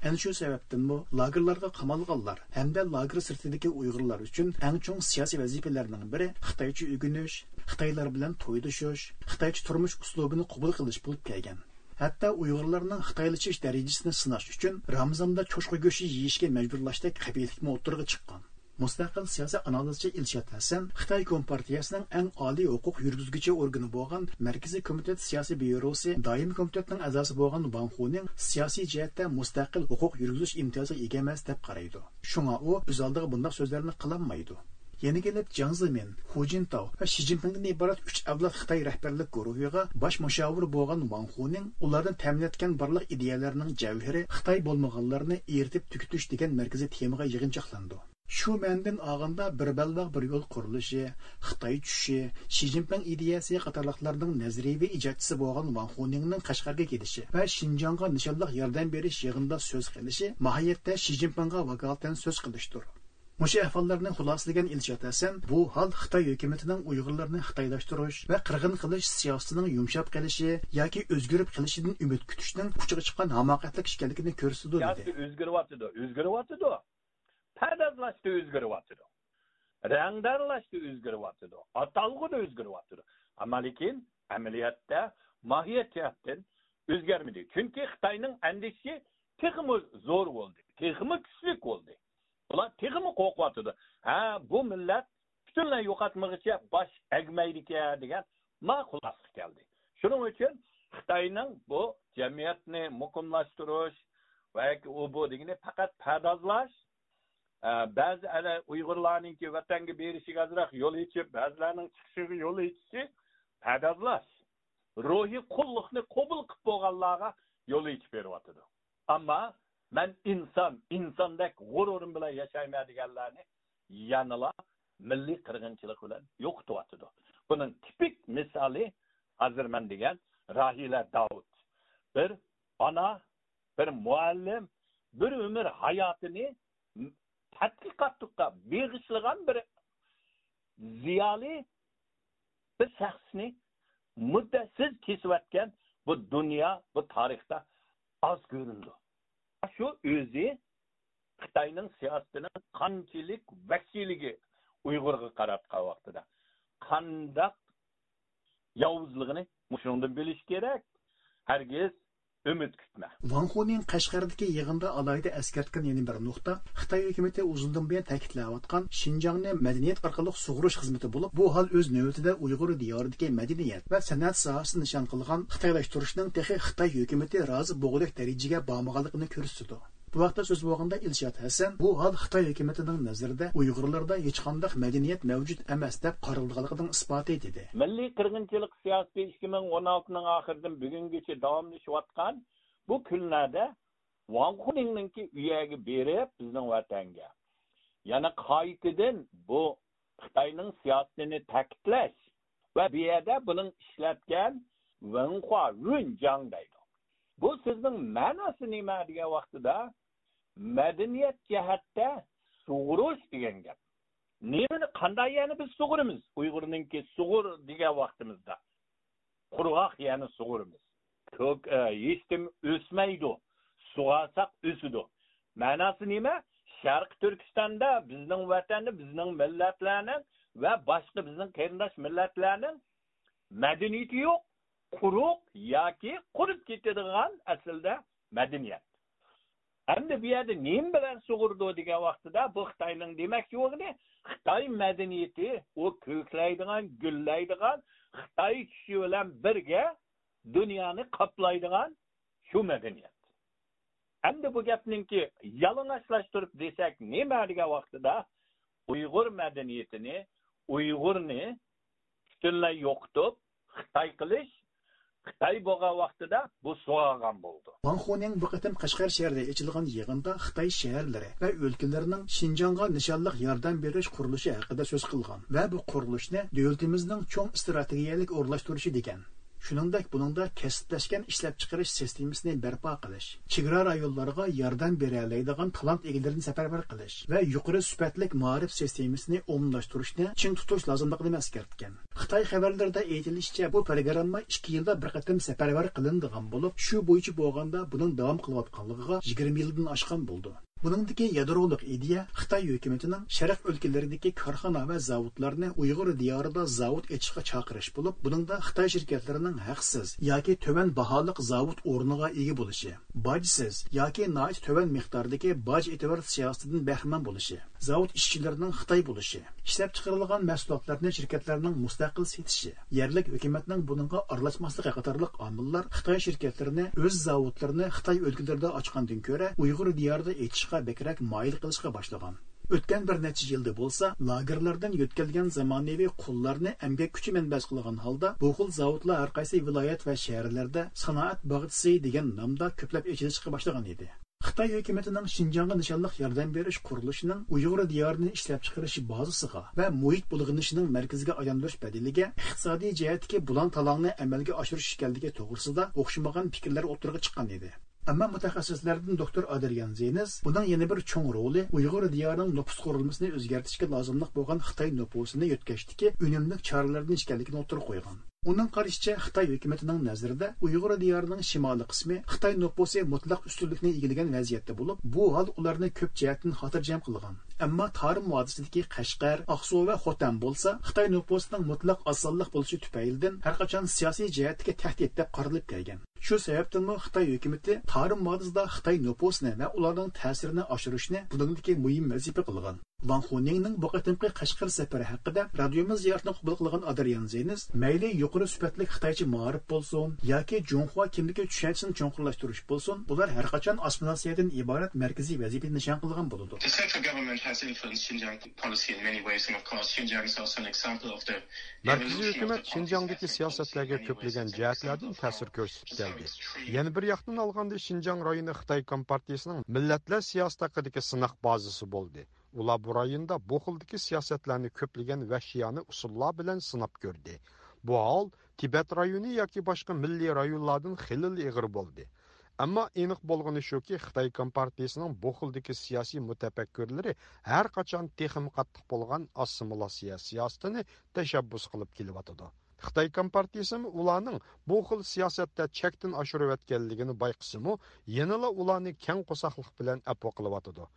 ئەنە شۇ سەۋەبتىنمۇ لاگېرلارغا قامالغانلار ھەمدە لاگېر سىرتىدىكى ئۇيغۇرلار ئۈچۈن ئەڭ چوڭ سىياسىي ۋەزىپىلەرنىڭ بىرى خىتايچە ئۆگىنىش، خىتايلار بىلەن تويلىشىش، خىتايچە تۇرمۇش ئۇسلۇبىنى قوبۇل قىلىش بولۇپ كەلگەن. ھەتتا ئۇيغۇرلارنىڭ خىتايلىشىش دەرىجىسىنى سىناش ئۈچۈن رامىزاندا چوشقا گۆشى يېيىشكە مەجبۇرلاشتەك قەبىھەتلىكمۇ ئوتتۇرىغا چىققان. مۇستەقىل سىياسىي ئانالىزچى ئىلشات ھەسەن خىتاي كومپارتىيەسىنىڭ ئەڭ ئالىي ھوقۇق يۈرگۈزگۈچى ئورگىنى بولغان مەركىزىي كومىتېت سىياسىي بيۇروسى دائىمىي كومىتېتىنىڭ ئەزاسى بولغان ۋاڭ خۇنىڭ سىياسىي جەھەتتە مۇستەقىل ھوقۇق يۈرگۈزۈش ئىمتىيازىغا ئىگە ئەمەس دەپ قارايدۇ. شۇڭا ئۇ ئۆز ئالدىغا بۇنداق سۆزلەرنى قىلالمايدۇ. يەنە كېلىپ جياڭ زېمىن، خۇ جىنتاۋ ۋە شى جىنپىڭدىن ئىبارەت ئۈچ ئەۋلاد خىتاي رەھبەرلىك گۇرۇھىغا باش مۇشاۋىر بولغان ۋاڭ خۇنىڭ ئۇلاردىن تەمىنەتكەن بارلىق ئىدىيەلەرنىڭ جەۋھىرى خىتاي بولمىغانلارنى ئېرىتىپ تۈگىتىش دېگەن مەركىزىي تېمىغا يىغىنچاقلاندى. شۇ مەنىدىن ئالغاندا، بىر بەلباغ بىر يول قۇرۇلۇشى، خىتاي چۈشۈشى، شى جىنپىڭ ئىدىيەسى قاتارلىقلارنىڭ نەزەرىيەۋى ئىجادچىسى بولغان ۋاڭ خۇنىڭنىڭ قەشقەرگە كېلىشى ۋە شىنجاڭغا نىشانلىق ياردەم بېرىش يىغىنىدا سۆز قىلىشى ماھىيەتتە شى جىنپىڭغا ۋاكالىتەن سۆز قىلىشتۇر. مۇشۇ ئەھۋاللارنى خۇلاسىلىگەن ئىلشات ھەسەن بۇ ھال خىتاي ھۆكۈمىتىنىڭ ئۇيغۇرلارنى خىتايلاشتۇرۇش ۋە قىرغىن قىلىش سىياسىتىنىڭ يۇمشاپ قېلىشى ياكى ئۆزگىرىپ قېلىشىدىن ئۈمىد كۈتۈشنىڭ پۇچىغا چىققان ھاماقەتلىك ئىكەنلىكىنى كۆرسىتىدۇ، دېدى. سىياسىتى ئۆزگىرىۋاتىدۇ، ئۆزگىرىۋاتىدۇ. پەردازلاشتا ئۆزگىرىۋاتىدۇ. رەڭدارلاشتا ئۆزگىرىۋاتىدۇ. ئاتالغۇدا ئۆزگىرىۋاتىدۇ. ئەمما لېكىن ئەمەلىيەتتە ماھىيەت جەھەتتىن ئۆزگەرمىدى. چۈنكى خىتاينىڭ ئەندىشىسى تېخىمۇ زور بولدى، تېخىمۇ كۈچلۈك بولدى. ئۇلار تېخىمۇ قورقۇۋاتىدۇ. ھە، بۇ مىللەت پۈتۈنلەي يوقاتمىغۇچە باش ئەگمەيدىكەن دېگەن ما خۇلاسىگە كەلدى. شۇنىڭ ئۈچۈن خىتاينىڭ بۇ جەمئىيەتنى مۇقىملاشتۇرۇش ۋە ئۇ بۇ دېگىنى پەقەت پەردازلاش، ئە، بەزى ئەنە ئۇيغۇرلارنىڭكى ۋەتەنگە بېرىشىگە ئازراق يول ئېچىپ، بەزىلەرنىڭ چىقىشىغا يول ئېچىشى پەردازلاش. روھىي قۇللۇقنى قوبۇل قىلىپ بولغانلارغا يول ئېچىپ بېرىۋاتىدۇ. ئەمما مەن ئىنسان، ئىنساندەك غۇرۇرۇم بىلەن ياشايمەن دېگەنلەرنى يەنىلا مىللىي قىرغىنچىلىق بىلەن يوقىتىۋاتىدۇ. بۇنىڭ تىپىك مىسالى ھازىر مەن دېگەن راھىلە داۋۇت. بىر ئانا، بىر مۇئەللىم، بىر ئۆمۈر ھاياتىنى تەتقىقاتلىققا بېغىشلىغان بىر زىيالىي، بىر شەخسنى مۇددەتسىز كېسىۋەتكەن بۇ دۇنيا، بۇ تارىختا ئاز كۆرۈلىدۇ. شۇ ئۆزى خىتاينىڭ سىياسىتىنىڭ قانچىلىك ۋەھشىيلىكى ئۇيغۇرغا قاراتقان ۋاقتىدا قانداق ياۋۇزلۇقىنى مۇشۇنىڭدىن بىلىش كېرەك. ھەرگىز ئۈمىد كۈتمە. ۋاڭ خۇنىڭ قەشقەردىكى يىغىندا ئالاھىدە ئەسكەرتكەن يەنە بىر نۇقتا، خىتاي ھۆكۈمىتى ئۇزۇندىن بۇيان تەكىتلەۋاتقان شىنجاڭنى مەدەنىيەت ئارقىلىق سۇغۇرۇش خىزمىتى بولۇپ، بۇ ھال ئۆز نۆۋىتىدە ئۇيغۇر دىيارىدىكى مەدەنىيەت ۋە سەنئەت ساھەسىنى نىشان قىلغان خىتايلاشتۇرۇشنىڭ تېخى خىتاي ھۆكۈمىتى رازى بولغۇدەك دەرىجىگە بارمىغانلىقىنى كۆرسىتىدۇ. بۇ ھەقتە سۆز بولغاندا، ئىلشات ھەسەن بۇ ھال خىتاي ھۆكۈمىتىنىڭ نەزىرىدە ئۇيغۇرلاردا ھېچقانداق مەدەنىيەت مەۋجۇت ئەمەس دەپ قارىلىدىغانلىقىنىڭ ئىسپاتى، دېدى. مىللىي قىرغىنچىلىق سىياسىتى ئىككى مىڭ ئون ئالتىنىڭ ئاخىرىدىن بۈگۈنگىچە داۋاملىشىۋاتقان بۇ كۈنلەردە ۋاڭ خۇنىڭنىڭكى ئۇ يەرگە بېرىپ، بىزنىڭ ۋەتەنگە يەنە قايتىدىن بۇ خىتاينىڭ سىياسىتىنى تەكىتلەش ۋە بۇ يەردە بۇنىڭ ئىشلەتكەن ۋېنخۇا، ۋېنجاڭ دەيدۇ. بۇ سۆزنىڭ مەناسى نېمە دېگەن ۋاقتىدا، مەدەنىيەت جەھەتتە سۇغۇرۇش دېگەن گەپ. نېمىنى، قانداق يەرنى بىز سۇغۇرىمىز؟ ئۇيغۇرنىڭكى سۇغۇر دېگەن ۋاقتىمىزدا قۇرغاق يەرنى سۇغۇرىمىز. كۆك، ئە، ھېچنېمە ئۆسمەيدۇ. سۇغارساق ئۆسىدۇ. مەناسى نېمە؟ شەرقىي تۈركىستاندا، بىزنىڭ ۋەتەندە، بىزنىڭ مىللەتلەرنىڭ ۋە باشقا بىزنىڭ قېرىنداش مىللەتلەرنىڭ مەدەنىيىتى يوق، قۇرۇق ياكى قۇرۇپ كېتىدىغان ئەسلىدە مەدەنىيەت. ئەمدى بۇ يەردە نېمە بىلەن سۇغۇرىدۇ دېگەن ۋاقتىدا، بۇ خىتاينىڭ دېمەكچى بولغىنى، خىتاي مەدەنىيىتى، ئۇ كۆكلەيدىغان، گۈللەيدىغان، خىتاي چۈشى بىلەن بىرگە دۇنيانى قاپلايدىغان شۇ مەدەنىيەت. ئەمدى بۇ گەپنىڭكى يالىڭاچلاشتۇرۇپ دېسەك نېمە دېگەن ۋاقتىدا، ئۇيغۇر مەدەنىيىتىنى، ئۇيغۇرنى پۈتۈنلەي يوقىتىپ، خىتاي قىلىش، خىتاي بولغان ۋاقتىدا بۇ سوغالغان بولىدۇ. ۋاڭ خۇنىڭ بۇ قېتىم قەشقەر شەھىرىدە ئېچىلغان يىغىندا خىتاي شەھەرلىرى ۋە ئۆلكىلىرىنىڭ شىنجاڭغا نىشانلىق ياردەم بېرىش قۇرۇلۇشى ھەققىدە سۆز قىلغان ۋە بۇ قۇرۇلۇشنى دۆلىتىمىزنىڭ چوڭ ئىستراتېگىيەلىك ئورۇنلاشتۇرۇشى دېگەن. شۇنىڭدەك بۇنىڭدا كەسىپلەشكەن ئىشلەپچىقىرىش سىستېمىسىنى بەرپا قىلىش، چېگرا رايونلارغا ياردەم بېرەلەيدىغان تالانت ئىگىلىرىنى سەپەرۋەر قىلىش ۋە يۇقىرى سۈپەتلىك مائارىپ سىستېمىسىنى ئومۇملاشتۇرۇشنى چىڭ تۇتۇش لازىملىقىنى ئەسكەرتكەن. خىتاي خەۋەرلىرىدە ئېيتىلىشىچە، بۇ پروگرامما ئىككى يىلدا بىر قېتىم سەپەرۋەر قىلىنىدىغان بولۇپ، شۇ بويىچە بولغاندا بۇنىڭ داۋام قىلىۋاتقانلىقىغا يىگىرمە يىلدىن ئاشقان بولىدۇ. بۇنىڭدىكى يادرولۇق ئىدىيە خىتاي ھۆكۈمىتىنىڭ شەرق ئۆلكىلىرىدىكى كارخانا ۋە زاۋۇتلارنى ئۇيغۇر دىيارىدا زاۋۇت ئېچىشقا چاقىرىش بولۇپ، بۇنىڭدا خىتاي شىركەتلىرىنىڭ ھەقسىز ياكى تۆۋەن باھالىق زاۋۇت ئورنىغا ئىگە بولۇشى، باجسىز ياكى ناھايىتى تۆۋەن مىقداردىكى باج ئېتىۋېت سىياسىتىدىن بەھرىمەن بولۇشى، زاۋۇت ئىشچىلىرىنىڭ خىتاي بولۇشى، ئىشلەپچىقىرىلغان مەھسۇلاتلارنى شىركەتلەرنىڭ مۇستەقىل سېتىشى، يەرلىك ھۆكۈمەتنىڭ بۇنىڭغا ئارىلاشماسلىقى قاتارلىق ئامىللار خىتاي شىركەتلىرىنى ئۆز زاۋۇتلىرىنى خىتاي ئۆلكىلىرىدە ئاچقاندىن كۆرە ئۇيغۇر دىيارىدا ئېچىشقا بەكرەك مايىل قىلىشقا باشلىغان. ئۆتكەن بىر نەچچە يىلدا بولسا، لاگېرلاردىن يۆتكەلگەن زامانىۋى قۇللارنى ئەمگەك كۈچى مەنبەسى قىلغان ھالدا، بۇ خىل زاۋۇتلار ھەر قايسى ۋىلايەت ۋە شەھەرلەردە سانائەت باغچىسى دېگەن نامدا كۆپلەپ ئېچىلىشقا باشلىغان ئىدى. خىتاي ھۆكۈمىتىنىڭ شىنجاڭغا نىشانلىق ياردەم بېرىش قۇرۇلۇشىنىڭ ئۇيغۇر دىيارىنى ئىشلەپچىقىرىش بازىسىغا ۋە مۇھىت بۇلغىنىشىنىڭ مەركىزىگە ئايلاندۇرۇش بەدىلىگە ئىقتىسادىي جەھەتتىكى بۇلاڭ-تالاڭنى ئەمەلگە ئاشۇرۇش ئىكەنلىكى توغرىسىدا ئوخشىمىغان پىكىرلەر ئوتتۇرىغا چىققان ئىدى. ئەمما مۇتەخەسسىسلەردىن دوكتور ئادرىيان زېنز بۇنىڭ يەنە بىر چوڭ رولى ئۇيغۇر دىيارىنىڭ نوپۇس قۇرۇلمىسىنى ئۆزگەرتىشكە لازىملىق بولغان خىتاي نوپۇسىنى يۆتكەشتىكى ئۈنۈملۈك چارىلەردىن ئىكەنلىكىنى ئوتتۇرىغا قويغان. ئۇنىڭ قارىشىچە، خىتاي ھۆكۈمىتىنىڭ نەزىرىدە ئۇيغۇر دىيارىنىڭ شىمالىي قىسمى خىتاي نوپۇسى مۇتلەق ئۈستۈنلۈكنى ئىگىلىگەن ۋەزىيەتتە بولۇپ، بۇ ھال ئۇلارنى كۆپ جەھەتتىن خاتىرجەم قىلغان. ئەمما تارىم ۋادىسىدىكى قەشقەر، ئاقسۇ ۋە خوتەن بولسا خىتاي نوپۇسىنىڭ مۇتلەق ئاز سانلىق بولۇشى تۈپەيلىدىن ھەرقاچان سىياسىي جەھەتتىكى تەھدىت دەپ قارىلىپ كەلگەن. شۇ سەۋەبتىنمۇ خىتاي ھۆكۈمىتى تارىم ۋادىسىدا خىتاي نوپۇسىنى ۋە ئۇلارنىڭ تەسىرىنى ئاشۇرۇشنى بۇنىڭدىكى مۇھىم ۋەزىپە قىلغان. ۋاڭ خۇنىڭنىڭ بۇ قېتىمقى قەشقەر سەپىرى ھەققىدە رادىيومىز زىيارىتىنى قوبۇل قىلغان ئادرىيان زېنز، مەيلى يۇقىرى سۈپەتلىك خىتايچە مائارىپ بولسۇن ياكى جۇڭخۇا كىملىكى چۈشەنچىسىنى چوڭقۇرلاشتۇرۇش بولسۇن، بۇلار ھەرقاچان ئاسسىمىلياتسىيەدىن ئىبارەت مەركىزىي ۋەزىپىنى نىشان قىلغان بولىدۇ. The central government has influenced Xinjiang policy in many ways, and of course, Xinjiang is also an example of the مەركىزىي ھۆكۈمەت شىنجاڭدىكى سىياسەتلەرگە كۆپلىگەن جەھەتلەردىن تەسىر كۆرسىتىپ كەلدى. يەنە بىر ياقتىن ئالغاندا، شىنجاڭ رايونى خىتاي كومپارتىيىسىنىڭ مىللەتلەر سىياسىتى ھەققىدىكى سىناق بازىسى بولدى. ئۇلار بۇ رايوندا بۇ خىلدىكى سىياسەتلەرنى كۆپلىگەن ۋەھشىيانە ئۇسۇللار بىلەن سىناپ كۆردى. بۇ ھال تىبەت رايونى ياكى باشقا مىللىي رايونلاردىن خېلىلا ئېغىر بولدى. ئەمما ئېنىق بولغىنى شۇكى، خىتاي كومپارتىيىسىنىڭ بۇ خىلدىكى سىياسىي مۇتەپەككۇرلىرى ھەر قاچان تېخىمۇ قاتتىق بولغان ئاسسىمىلياتسىيە سىياسىتىنى تەشەببۇس قىلىپ كېلىۋاتىدۇ. خىتاي كومپارتىيىسىمۇ ئۇلارنىڭ بۇ خىل سىياسەتتە چەكتىن ئاشۇرۇۋەتكەنلىكىنى بايقىسىمۇ، يەنىلا ئۇلارنى كەڭ قورساقلىق بىلەن ئەپۇ قىلىۋاتىدۇ.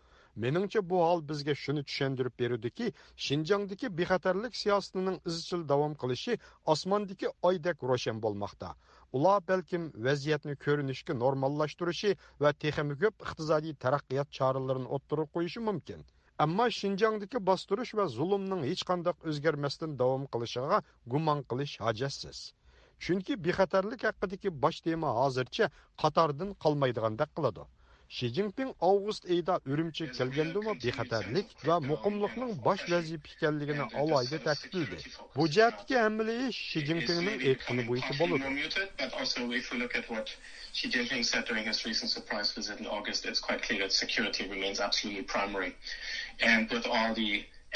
مېنىڭچە، بۇ ھال بىزگە شۇنى چۈشەندۈرۈپ بېرىدۇكى، شىنجاڭدىكى بىخەتەرلىك سىياسىتىنىڭ ئىزچىل داۋام قىلىشى ئاسماندىكى ئايدەك روشەن بولماقتا. ئۇلار بەلكىم ۋەزىيەتنى كۆرۈنۈشكە نورماللاشتۇرۇشى ۋە تېخىمۇ كۆپ ئىقتىسادىي تەرەققىيات چارىلىرىنى ئوتتۇرىغا قويۇشى مۇمكىن. ئەمما شىنجاڭدىكى باستۇرۇش ۋە زۇلۇمنىڭ ھېچقانداق ئۆزگەرمەستىن داۋام قىلىشىغا گۇمان قىلىش ھاجەتسىز. چۈنكى بىخەتەرلىك ھەققىدىكى باش تېما ھازىرچە قاتاردىن قالمايدىغاندەك قىلىدۇ. شى جىنپىڭ ئاۋغۇست ئېيىدا ئۈرۈمچىگە كەلگەندىمۇ بىخەتەرلىك ۋە مۇقىملىقنىڭ باش ۋەزىپە ئىكەنلىكىنى ئالاھىدە تەكىتلىدى. بۇ جەھەتتىكى ھەممىلا ئىش شى جىنپىڭنىڭ ئېيتقىنى بويىچە بولىدۇ. Xi Jinping said during his recent surprise visit in August, it's quite clear that security remains absolutely primary. And with all the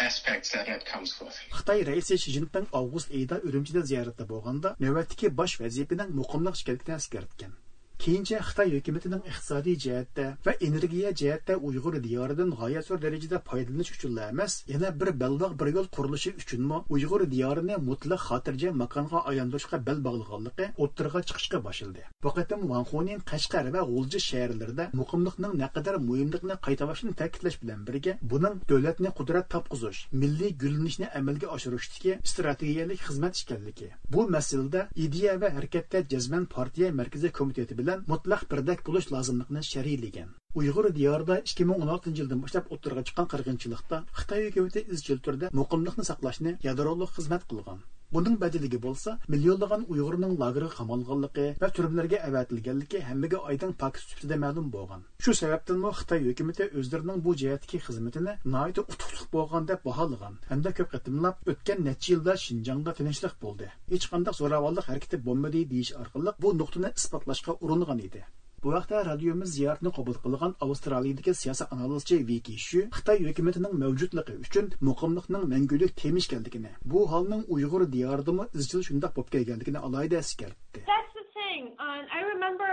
aspects that that comes with. خىتاي رەئىسى شى جىنپىڭ ئاۋغۇست ئېيىدا ئۈرۈمچىدە زىيارەتتە بولغاندا، نۆۋەتتىكى باش ۋەزىپىنىڭ مۇقىملىق ئىكەنلىكىنى ئەسكەرتكەن. كېيىنچە خىتاي ھۆكۈمىتىنىڭ ئىقتىسادىي جەھەتتە ۋە ئېنېرگىيە جەھەتتە ئۇيغۇر دىيارىدىن غايەت زور دەرىجىدە پايدىلىنىش ئۈچۈنلا ئەمەس، يەنە بىر بەلباغ بىر يول قۇرۇلۇشى ئۈچۈنمۇ ئۇيغۇر دىيارىنى مۇتلەق خاتىرجەم ماكانغا ئايلاندۇرۇشقا بەل باغلىغانلىقى ئوتتۇرىغا چىقىشقا باشلىدى. بۇ قېتىم ۋاڭ خۇنىڭ قەشقەر ۋە غۇلجا شەھەرلىرىدە مۇقىملىقنىڭ نەقەدەر مۇھىملىقىنى قايتىلاشنى تەكىتلەش بىلەن بىرگە، بۇنىڭ دۆلەتنى قۇدرەت تاپقۇزۇش، مىللىي گۈللىنىشنى ئەمەلگە ئاشۇرۇشتىكى ئىستراتېگىيەلىك خىزمەت ئىكەنلىكى، بۇ مەسىلىدە ئىدىيە ۋە ھەرىكەتتە جەزمەن پارتىيە مەركىزىي كومىتېتى بىلەن مۇتلەق بىردەك بولۇش لازىملىقىنى شەرھلىگەن. ئۇيغۇر دىيارىدا ئىككى مىڭ ئون ئالتىنچى يىلدىن باشلاپ ئوتتۇرىغا چىققان قىرغىنچىلىقتا خىتاي ھۆكۈمىتى ئىزچىل تۈردە مۇقىملىقنى ساقلاشنى يادرولۇق خىزمەت قىلغان. بۇنىڭ بەدىلىگە بولسا مىليونلىغان ئۇيغۇرنىڭ لاگېرغا قامالغانلىقى ۋە تۈرمىلەرگە ئەۋەتىلگەنلىكى ھەممىگە ئايدىڭ پاكىت سۈپىتىدە مەلۇم بولغان. شۇ سەۋەبتىنمۇ خىتاي ھۆكۈمىتى ئۆزلىرىنىڭ بۇ جەھەتتىكى خىزمىتىنى ناھايىتى ئۇتۇقلۇق بولغان دەپ باھالىغان ھەمدە كۆپ قېتىملاپ ئۆتكەن نەچچە يىلدا شىنجاڭدا تىنچلىق بولدى، ھېچقانداق زوراۋانلىق ھەرىكىتى بولمىدى دېيىش ئارقىلىق بۇ نۇقتىنى ئىسپاتلاشقا ئۇرۇنغان ئىدى. بۇ ھەقتە رادىيومىز زىيارىتىنى قوبۇل قىلغان ئاۋسترالىيىدىكى سىياسىي ئانالىزچى ۋىكى شۈ خىتاي ھۆكۈمىتىنىڭ مەۋجۇتلۇقى ئۈچۈن مۇقىملىقنىڭ مەڭگۈلۈك تېما ئىكەنلىكىنى، بۇ ھالنىڭ ئۇيغۇر دىيارىدىمۇ ئىزچىل شۇنداق بولۇپ كەلگەنلىكىنى ئالاھىدە ئەسكەرتتى. That's the thing. Um, I remember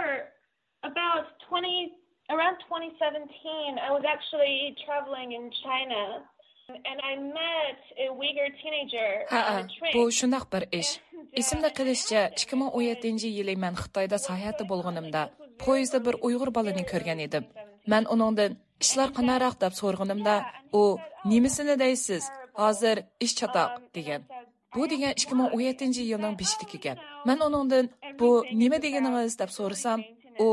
about twenty, around twenty seventeen, I was actually traveling in China. And I met a Uyghur teenager ھەئە، on a train. بۇ شۇنداق بىر ئىش. ئېسىمدە قېلىشىچە، ئىككى مىڭ ئون يەتتىنچى يىلى مەن خىتايدا ساياھەتتە بولغىنىمدا، پويىزدا بىر ئۇيغۇر بالىنى كۆرگەن ئىدىم. مەن ئۇنىڭدىن، «ئىشلار قانداقراق؟» دەپ سورىغىنىمدا، ئۇ، «نېمىسىنى دەيسىز؟ ھازىر ئىش چاتاق» دېگەن. بۇ دېگەن ئىككى مىڭ ئون يەتتىنچى يىلنىڭ بېشىدىكى گەپ. مەن ئۇنىڭدىن، «بۇ نېمە دېگىنىڭىز؟» دەپ سورىسام، ئۇ،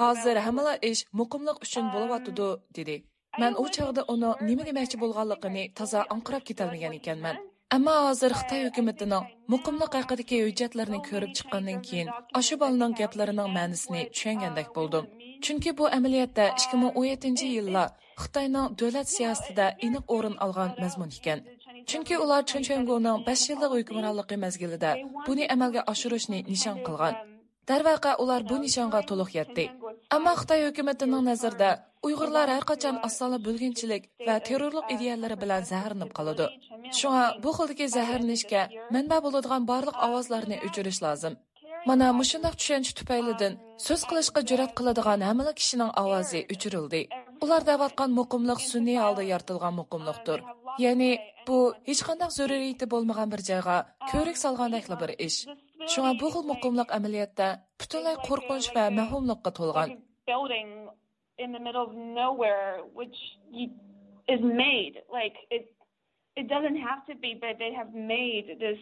«ھازىر ھەممىلا ئىش مۇقىملىق ئۈچۈن بولۇۋاتىدۇ» دېدى. مەن ئۇ چاغدا ئۇنىڭ نېمە دېمەكچى بولغانلىقىنى تازا ئاڭقىراپ كېتەلمىگەن ئىكەنمەن. ئەمما ھازىر خىتاي ھۆكۈمىتىنىڭ مۇقىملىق ھەققىدىكى ھۆججەتلىرىنى كۆرۈپ چىققاندىن كېيىن، ئاشۇ بالىنىڭ گەپلىرىنىڭ مەنىسىنى چۈشەنگەندەك بولدۇم. چۈنكى بۇ ئەمەلىيەتتە ئىككى مىڭ ئون يەتتىنچى يىللار خىتاينىڭ دۆلەت سىياسىتىدە ئېنىق ئورۇن ئالغان مەزمۇن ئىكەن. چۈنكى ئۇلار چېن چۈەنگونىڭ بەش يىللىق ھۆكۈمرانلىقى مەزگىلىدە بۇنى ئەمەلگە ئاشۇرۇشنى نىشان قىلغان. دەرۋەقە، ئۇلار بۇ نىشانغا تولۇق يەتتى. ئەمما خىتاي ھۆكۈمىتىنىڭ نەزىرىدە ئۇيغۇرلار ھەر قاچان ئاز سانلىق بۆلگۈنچىلىك ۋە تېررورلۇق ئىدىيەلىرى بىلەن زەھەرلىنىپ قالىدۇ. شۇڭا بۇ خىلدىكى زەھەرلىنىشكە مەنبە بولىدىغان بارلىق ئاۋازلارنى ئۆچۈرۈش لازىم. مانا مۇشۇنداق چۈشەنچە تۈپەيلىدىن سۆز قىلىشقا جۈرئەت قىلىدىغان ھەممىلا كىشىنىڭ ئاۋازى ئۆچۈرۈلدى. ئۇلار دەۋاتقان مۇقىملىق سۈنئىي ھالدا يارىتىلغان مۇقىملىقتۇر. يەنى بۇ ھېچقانداق زۆرۈرىيىتى بولمىغان بىر جايغا كۆۋرۈك سالغاندەكلا بىر ئىش. شۇڭا بۇ خىل مۇقىملىق ئەمەلىيەتتە پۈتۈنلەي قورقۇنچ ۋە مەۋھۇملۇققا تولغان. Building in the middle of nowhere, which you, is made. Like, it, it doesn't have to be, but they have made this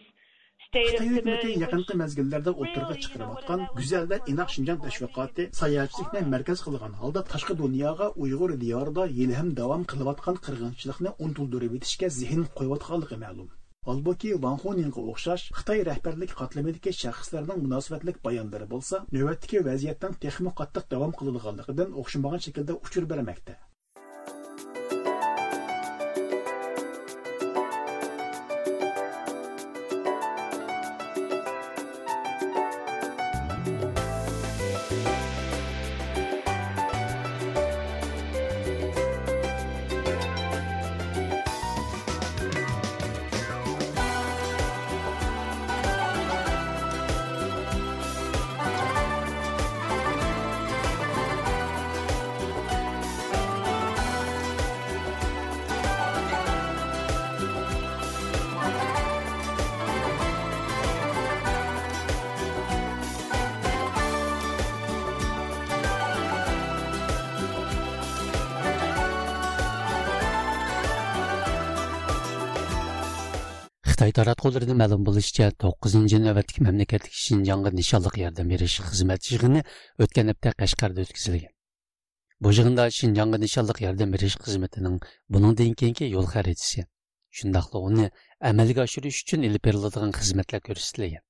state of خىتاي ھۆكۈمىتى يېقىنقى مەزگىللەردە ئوتتۇرىغا چىقىرىۋاتقان گۈزەل ۋە ئىناق شىنجاڭ تەشۋىقاتى ساياھەتچىلىكنى مەركەز قىلغان ھالدا تاشقى دۇنياغا ئۇيغۇر دىيارىدا ھېلىھەم داۋام قىلىۋاتقان قىرغىنچىلىقنى ئۇنتۇلدۇرۇۋېتىشكە زېھىن قويۇۋاتقانلىقى مەلۇم. ھالبۇكى، ۋاڭ خۇنىڭغا ئوخشاش خىتاي رەھبەرلىك قاتلىمىدىكى شەخسلەرنىڭ مۇناسىۋەتلىك بايانلىرى بولسا، نۆۋەتتىكى ۋەزىيەتنىڭ تېخىمۇ قاتتىق داۋام قىلىدىغانلىقىدىن ئوخشىمىغان شەكىلدە ئۇچۇر بەرمەكتە. خىتاي تاراتقۇلىرىدىن مەلۇم بولۇشىچە، توققۇزىنچى نۆۋەتلىك مەملىكەتلىك شىنجاڭغا نىشانلىق ياردەم بېرىش خىزمەت يىغىنى ئۆتكەن ھەپتە قەشقەردە ئۆتكۈزۈلگەن. بۇ يىغىندا شىنجاڭغا نىشانلىق ياردەم بېرىش خىزمىتىنىڭ بۇنىڭدىن كېيىنكى يول خەرىتىسى، شۇنداقلا ئۇنى ئەمەلگە ئاشۇرۇش ئۈچۈن ئېلىپ بېرىلىدىغان خىزمەتلەر كۆرسىتىلگەن.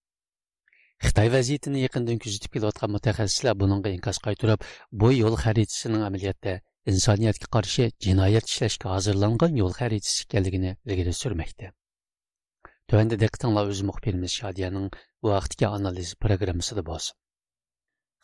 خىتاي ۋەزىيىتىنى يېقىندىن كۆزىتىپ كېلىۋاتقان مۇتەخەسسىسلەر بۇنىڭغا ئىنكاس قايتۇرۇپ، بۇ يول خەرىتىسىنىڭ ئەمەلىيەتتە ئىنسانىيەتكە قارشى جىنايەت ئىشلەشكە ھازىرلانغان يول خەرىتىسى ئىكەنلىكىنى ئىلگىرى سۈرمەكتە. تۆۋەندە دىققىتىڭلار ئۆز مۇخبىرىمىز شادىيەنىڭ بۇ ھەقتىكى ئانالىز پروگراممىسىدا بولسۇن.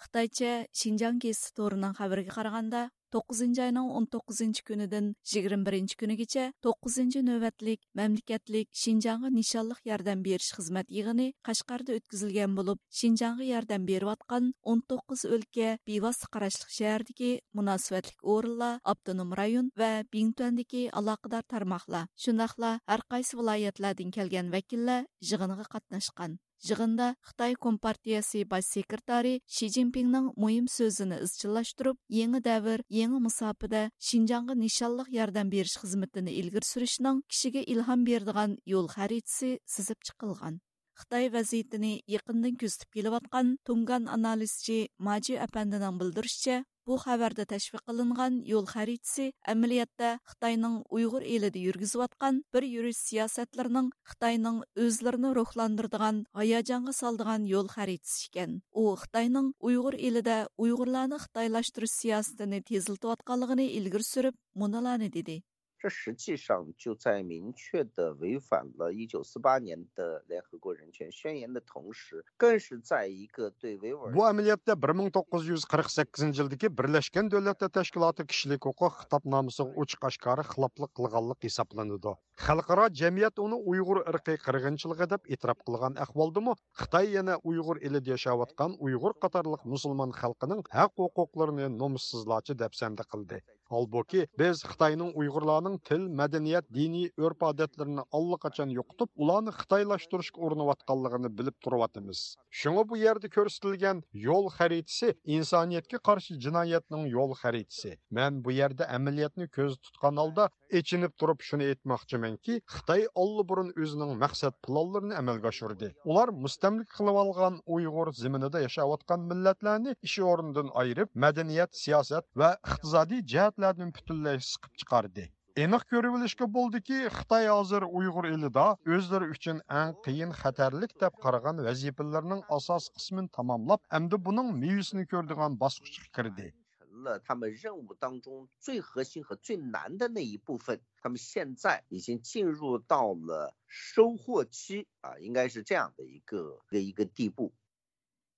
خىتايچە شىنجاڭ گېزىتى تورىنىڭ خەۋىرىگە قارىغاندا، توققۇزىنچى ئاينىڭ ئون توققۇزىنچى كۈنىدىن يىگىرمە بىرىنچى كۈنىگىچە توققۇزىنچى نۆۋەتلىك مەملىكەتلىك شىنجاڭغا نىشانلىق ياردەم بېرىش خىزمەت يىغىنى قەشقەردە ئۆتكۈزۈلگەن بولۇپ، شىنجاڭغا ياردەم بېرىۋاتقان ئون توققۇز ئۆلكە، بىۋاسىتە قاراشلىق شەھەردىكى مۇناسىۋەتلىك ئورۇنلار، ئاپتونوم رايون ۋە بىڭتۈەندىكى ئالاقىدار تارماقلار، شۇنداقلا ھەرقايسى ۋىلايەتلەردىن كەلگەن ۋەكىللەر يىغىنغا قاتناشقان. يىغىندا خىتاي كومپارتىيەسى باش سېكرېتارى شى جىنپىڭنىڭ مۇھىم سۆزىنى ئىزچىللاشتۇرۇپ، يېڭى دەۋر، يېڭى مۇساپىدە شىنجاڭغا نىشانلىق ياردەم بېرىش خىزمىتىنى ئىلگىرى سۈرۈشنىڭ كىشىگە ئىلھام بېرىدىغان يول خەرىتىسى سىزىپ چىقىلغان. خىتاي ۋەزىيىتىنى يېقىندىن كۆزىتىپ كېلىۋاتقان تۇڭگان ئانالىزچى ماجى ئەپەندىنىڭ بىلدۈرۈشىچە، بۇ خەۋەردە تەشۋىق قىلىنغان يول خەرىتىسى ئەمەلىيەتتە خىتاينىڭ ئۇيغۇر ئېلىدە يۈرگۈزۈۋاتقان بىر يۈرۈش سىياسەتلىرىنىڭ خىتاينىڭ ئۆزلىرىنى روھلاندۇرىدىغان، ھاياجانغا سالىدىغان يول خەرىتىسى ئىكەن. ئۇ خىتاينىڭ ئۇيغۇر ئېلىدە ئۇيغۇرلارنى خىتايلاشتۇرۇش سىياسىتىنى تېزلىتىۋاتقانلىقىنى ئىلگىرى سۈرۈپ، مۇنۇلارنى دېدى. 这实际上就在明确地违反了一九四八年的联合国人权宣言的同时，更是在一个对维吾尔 بۇ ئەمەلىيەتتە بىر مىڭ توققۇز يۈز قىرىق سەككىزىنچى يىلدىكى بىرلەشكەن دۆلەتلەر تەشكىلاتى كىشىلىك ھوقۇق خىتابنامىسىغا ئوچۇق ئاشكارا خىلاپلىق قىلغانلىق ھېسابلىنىدۇ. خەلقئارا جەمئىيەت ئۇنى ئۇيغۇر ئىرقىي قىرغىنچىلىقى دەپ ئېتىراپ قىلغان ئەھۋالدىمۇ، خىتاي يەنە ئۇيغۇر ئېلىدە ياشاۋاتقان ئۇيغۇر قاتارلىق مۇسۇلمان خەلقىنىڭ ھەق ھوقۇقلىرىنى نومۇسسىزلارچە دەپسەندە قىلدى. ھالبۇكى، بىز خىتاينىڭ ئۇيغۇرلارنىڭ تىل، مەدەنىيەت، دىنىي ئۆرپ-ئادەتلىرىنى ئاللىقاچان يوقىتىپ، ئۇلارنى خىتايلاشتۇرۇشقا ئۇرۇنۇۋاتقانلىقىنى بىلىپ تۇرۇۋاتىمىز. شۇڭا بۇ يەردە كۆرسىتىلگەن يول خەرىتىسى ئىنسانىيەتكە قارشى جىنايەتنىڭ يول خەرىتىسى. مەن بۇ يەردە ئەمەلىيەتنى كۆزدە تۇتقان ھالدا ئېچىنىپ تۇرۇپ شۇنى ئېيتماقچىمەنكى، خىتاي ئاللىبۇرۇن ئۆزىنىڭ مەقسەت پىلانلىرىنى ئەمەلگە ئاشۇردى. ئۇلار مۇستەملىكە قىلىۋالغان ئۇيغۇر زېمىنىدا ياشاۋاتقان مىللەتلەرنى ئىش ئورنىدىن ئايرىپ، مەدەنىيەت، سىياسەت ۋە ئىقتىسادىي جەھەتلەردىن پۈتۈنلەي سىقىپ چىقاردى. ئېنىق كۆرۈۋېلىشكە بولىدۇكى، خىتاي ھازىر ئۇيغۇر ئېلىدا ئۆزلىرى ئۈچۈن ئەڭ قىيىن، خەتەرلىك دەپ قارىغان ۋەزىپىلىرىنىڭ ئاساسىي قىسمىنى تاماملاپ، ئەمدى بۇنىڭ مېۋىسىنى كۆرىدىغان باسقۇچقا كىردى. 成了他们任务当中最核心和最难的那一部分。他们现在已经进入到了收获期啊，应该是这样的一个一个一个地步。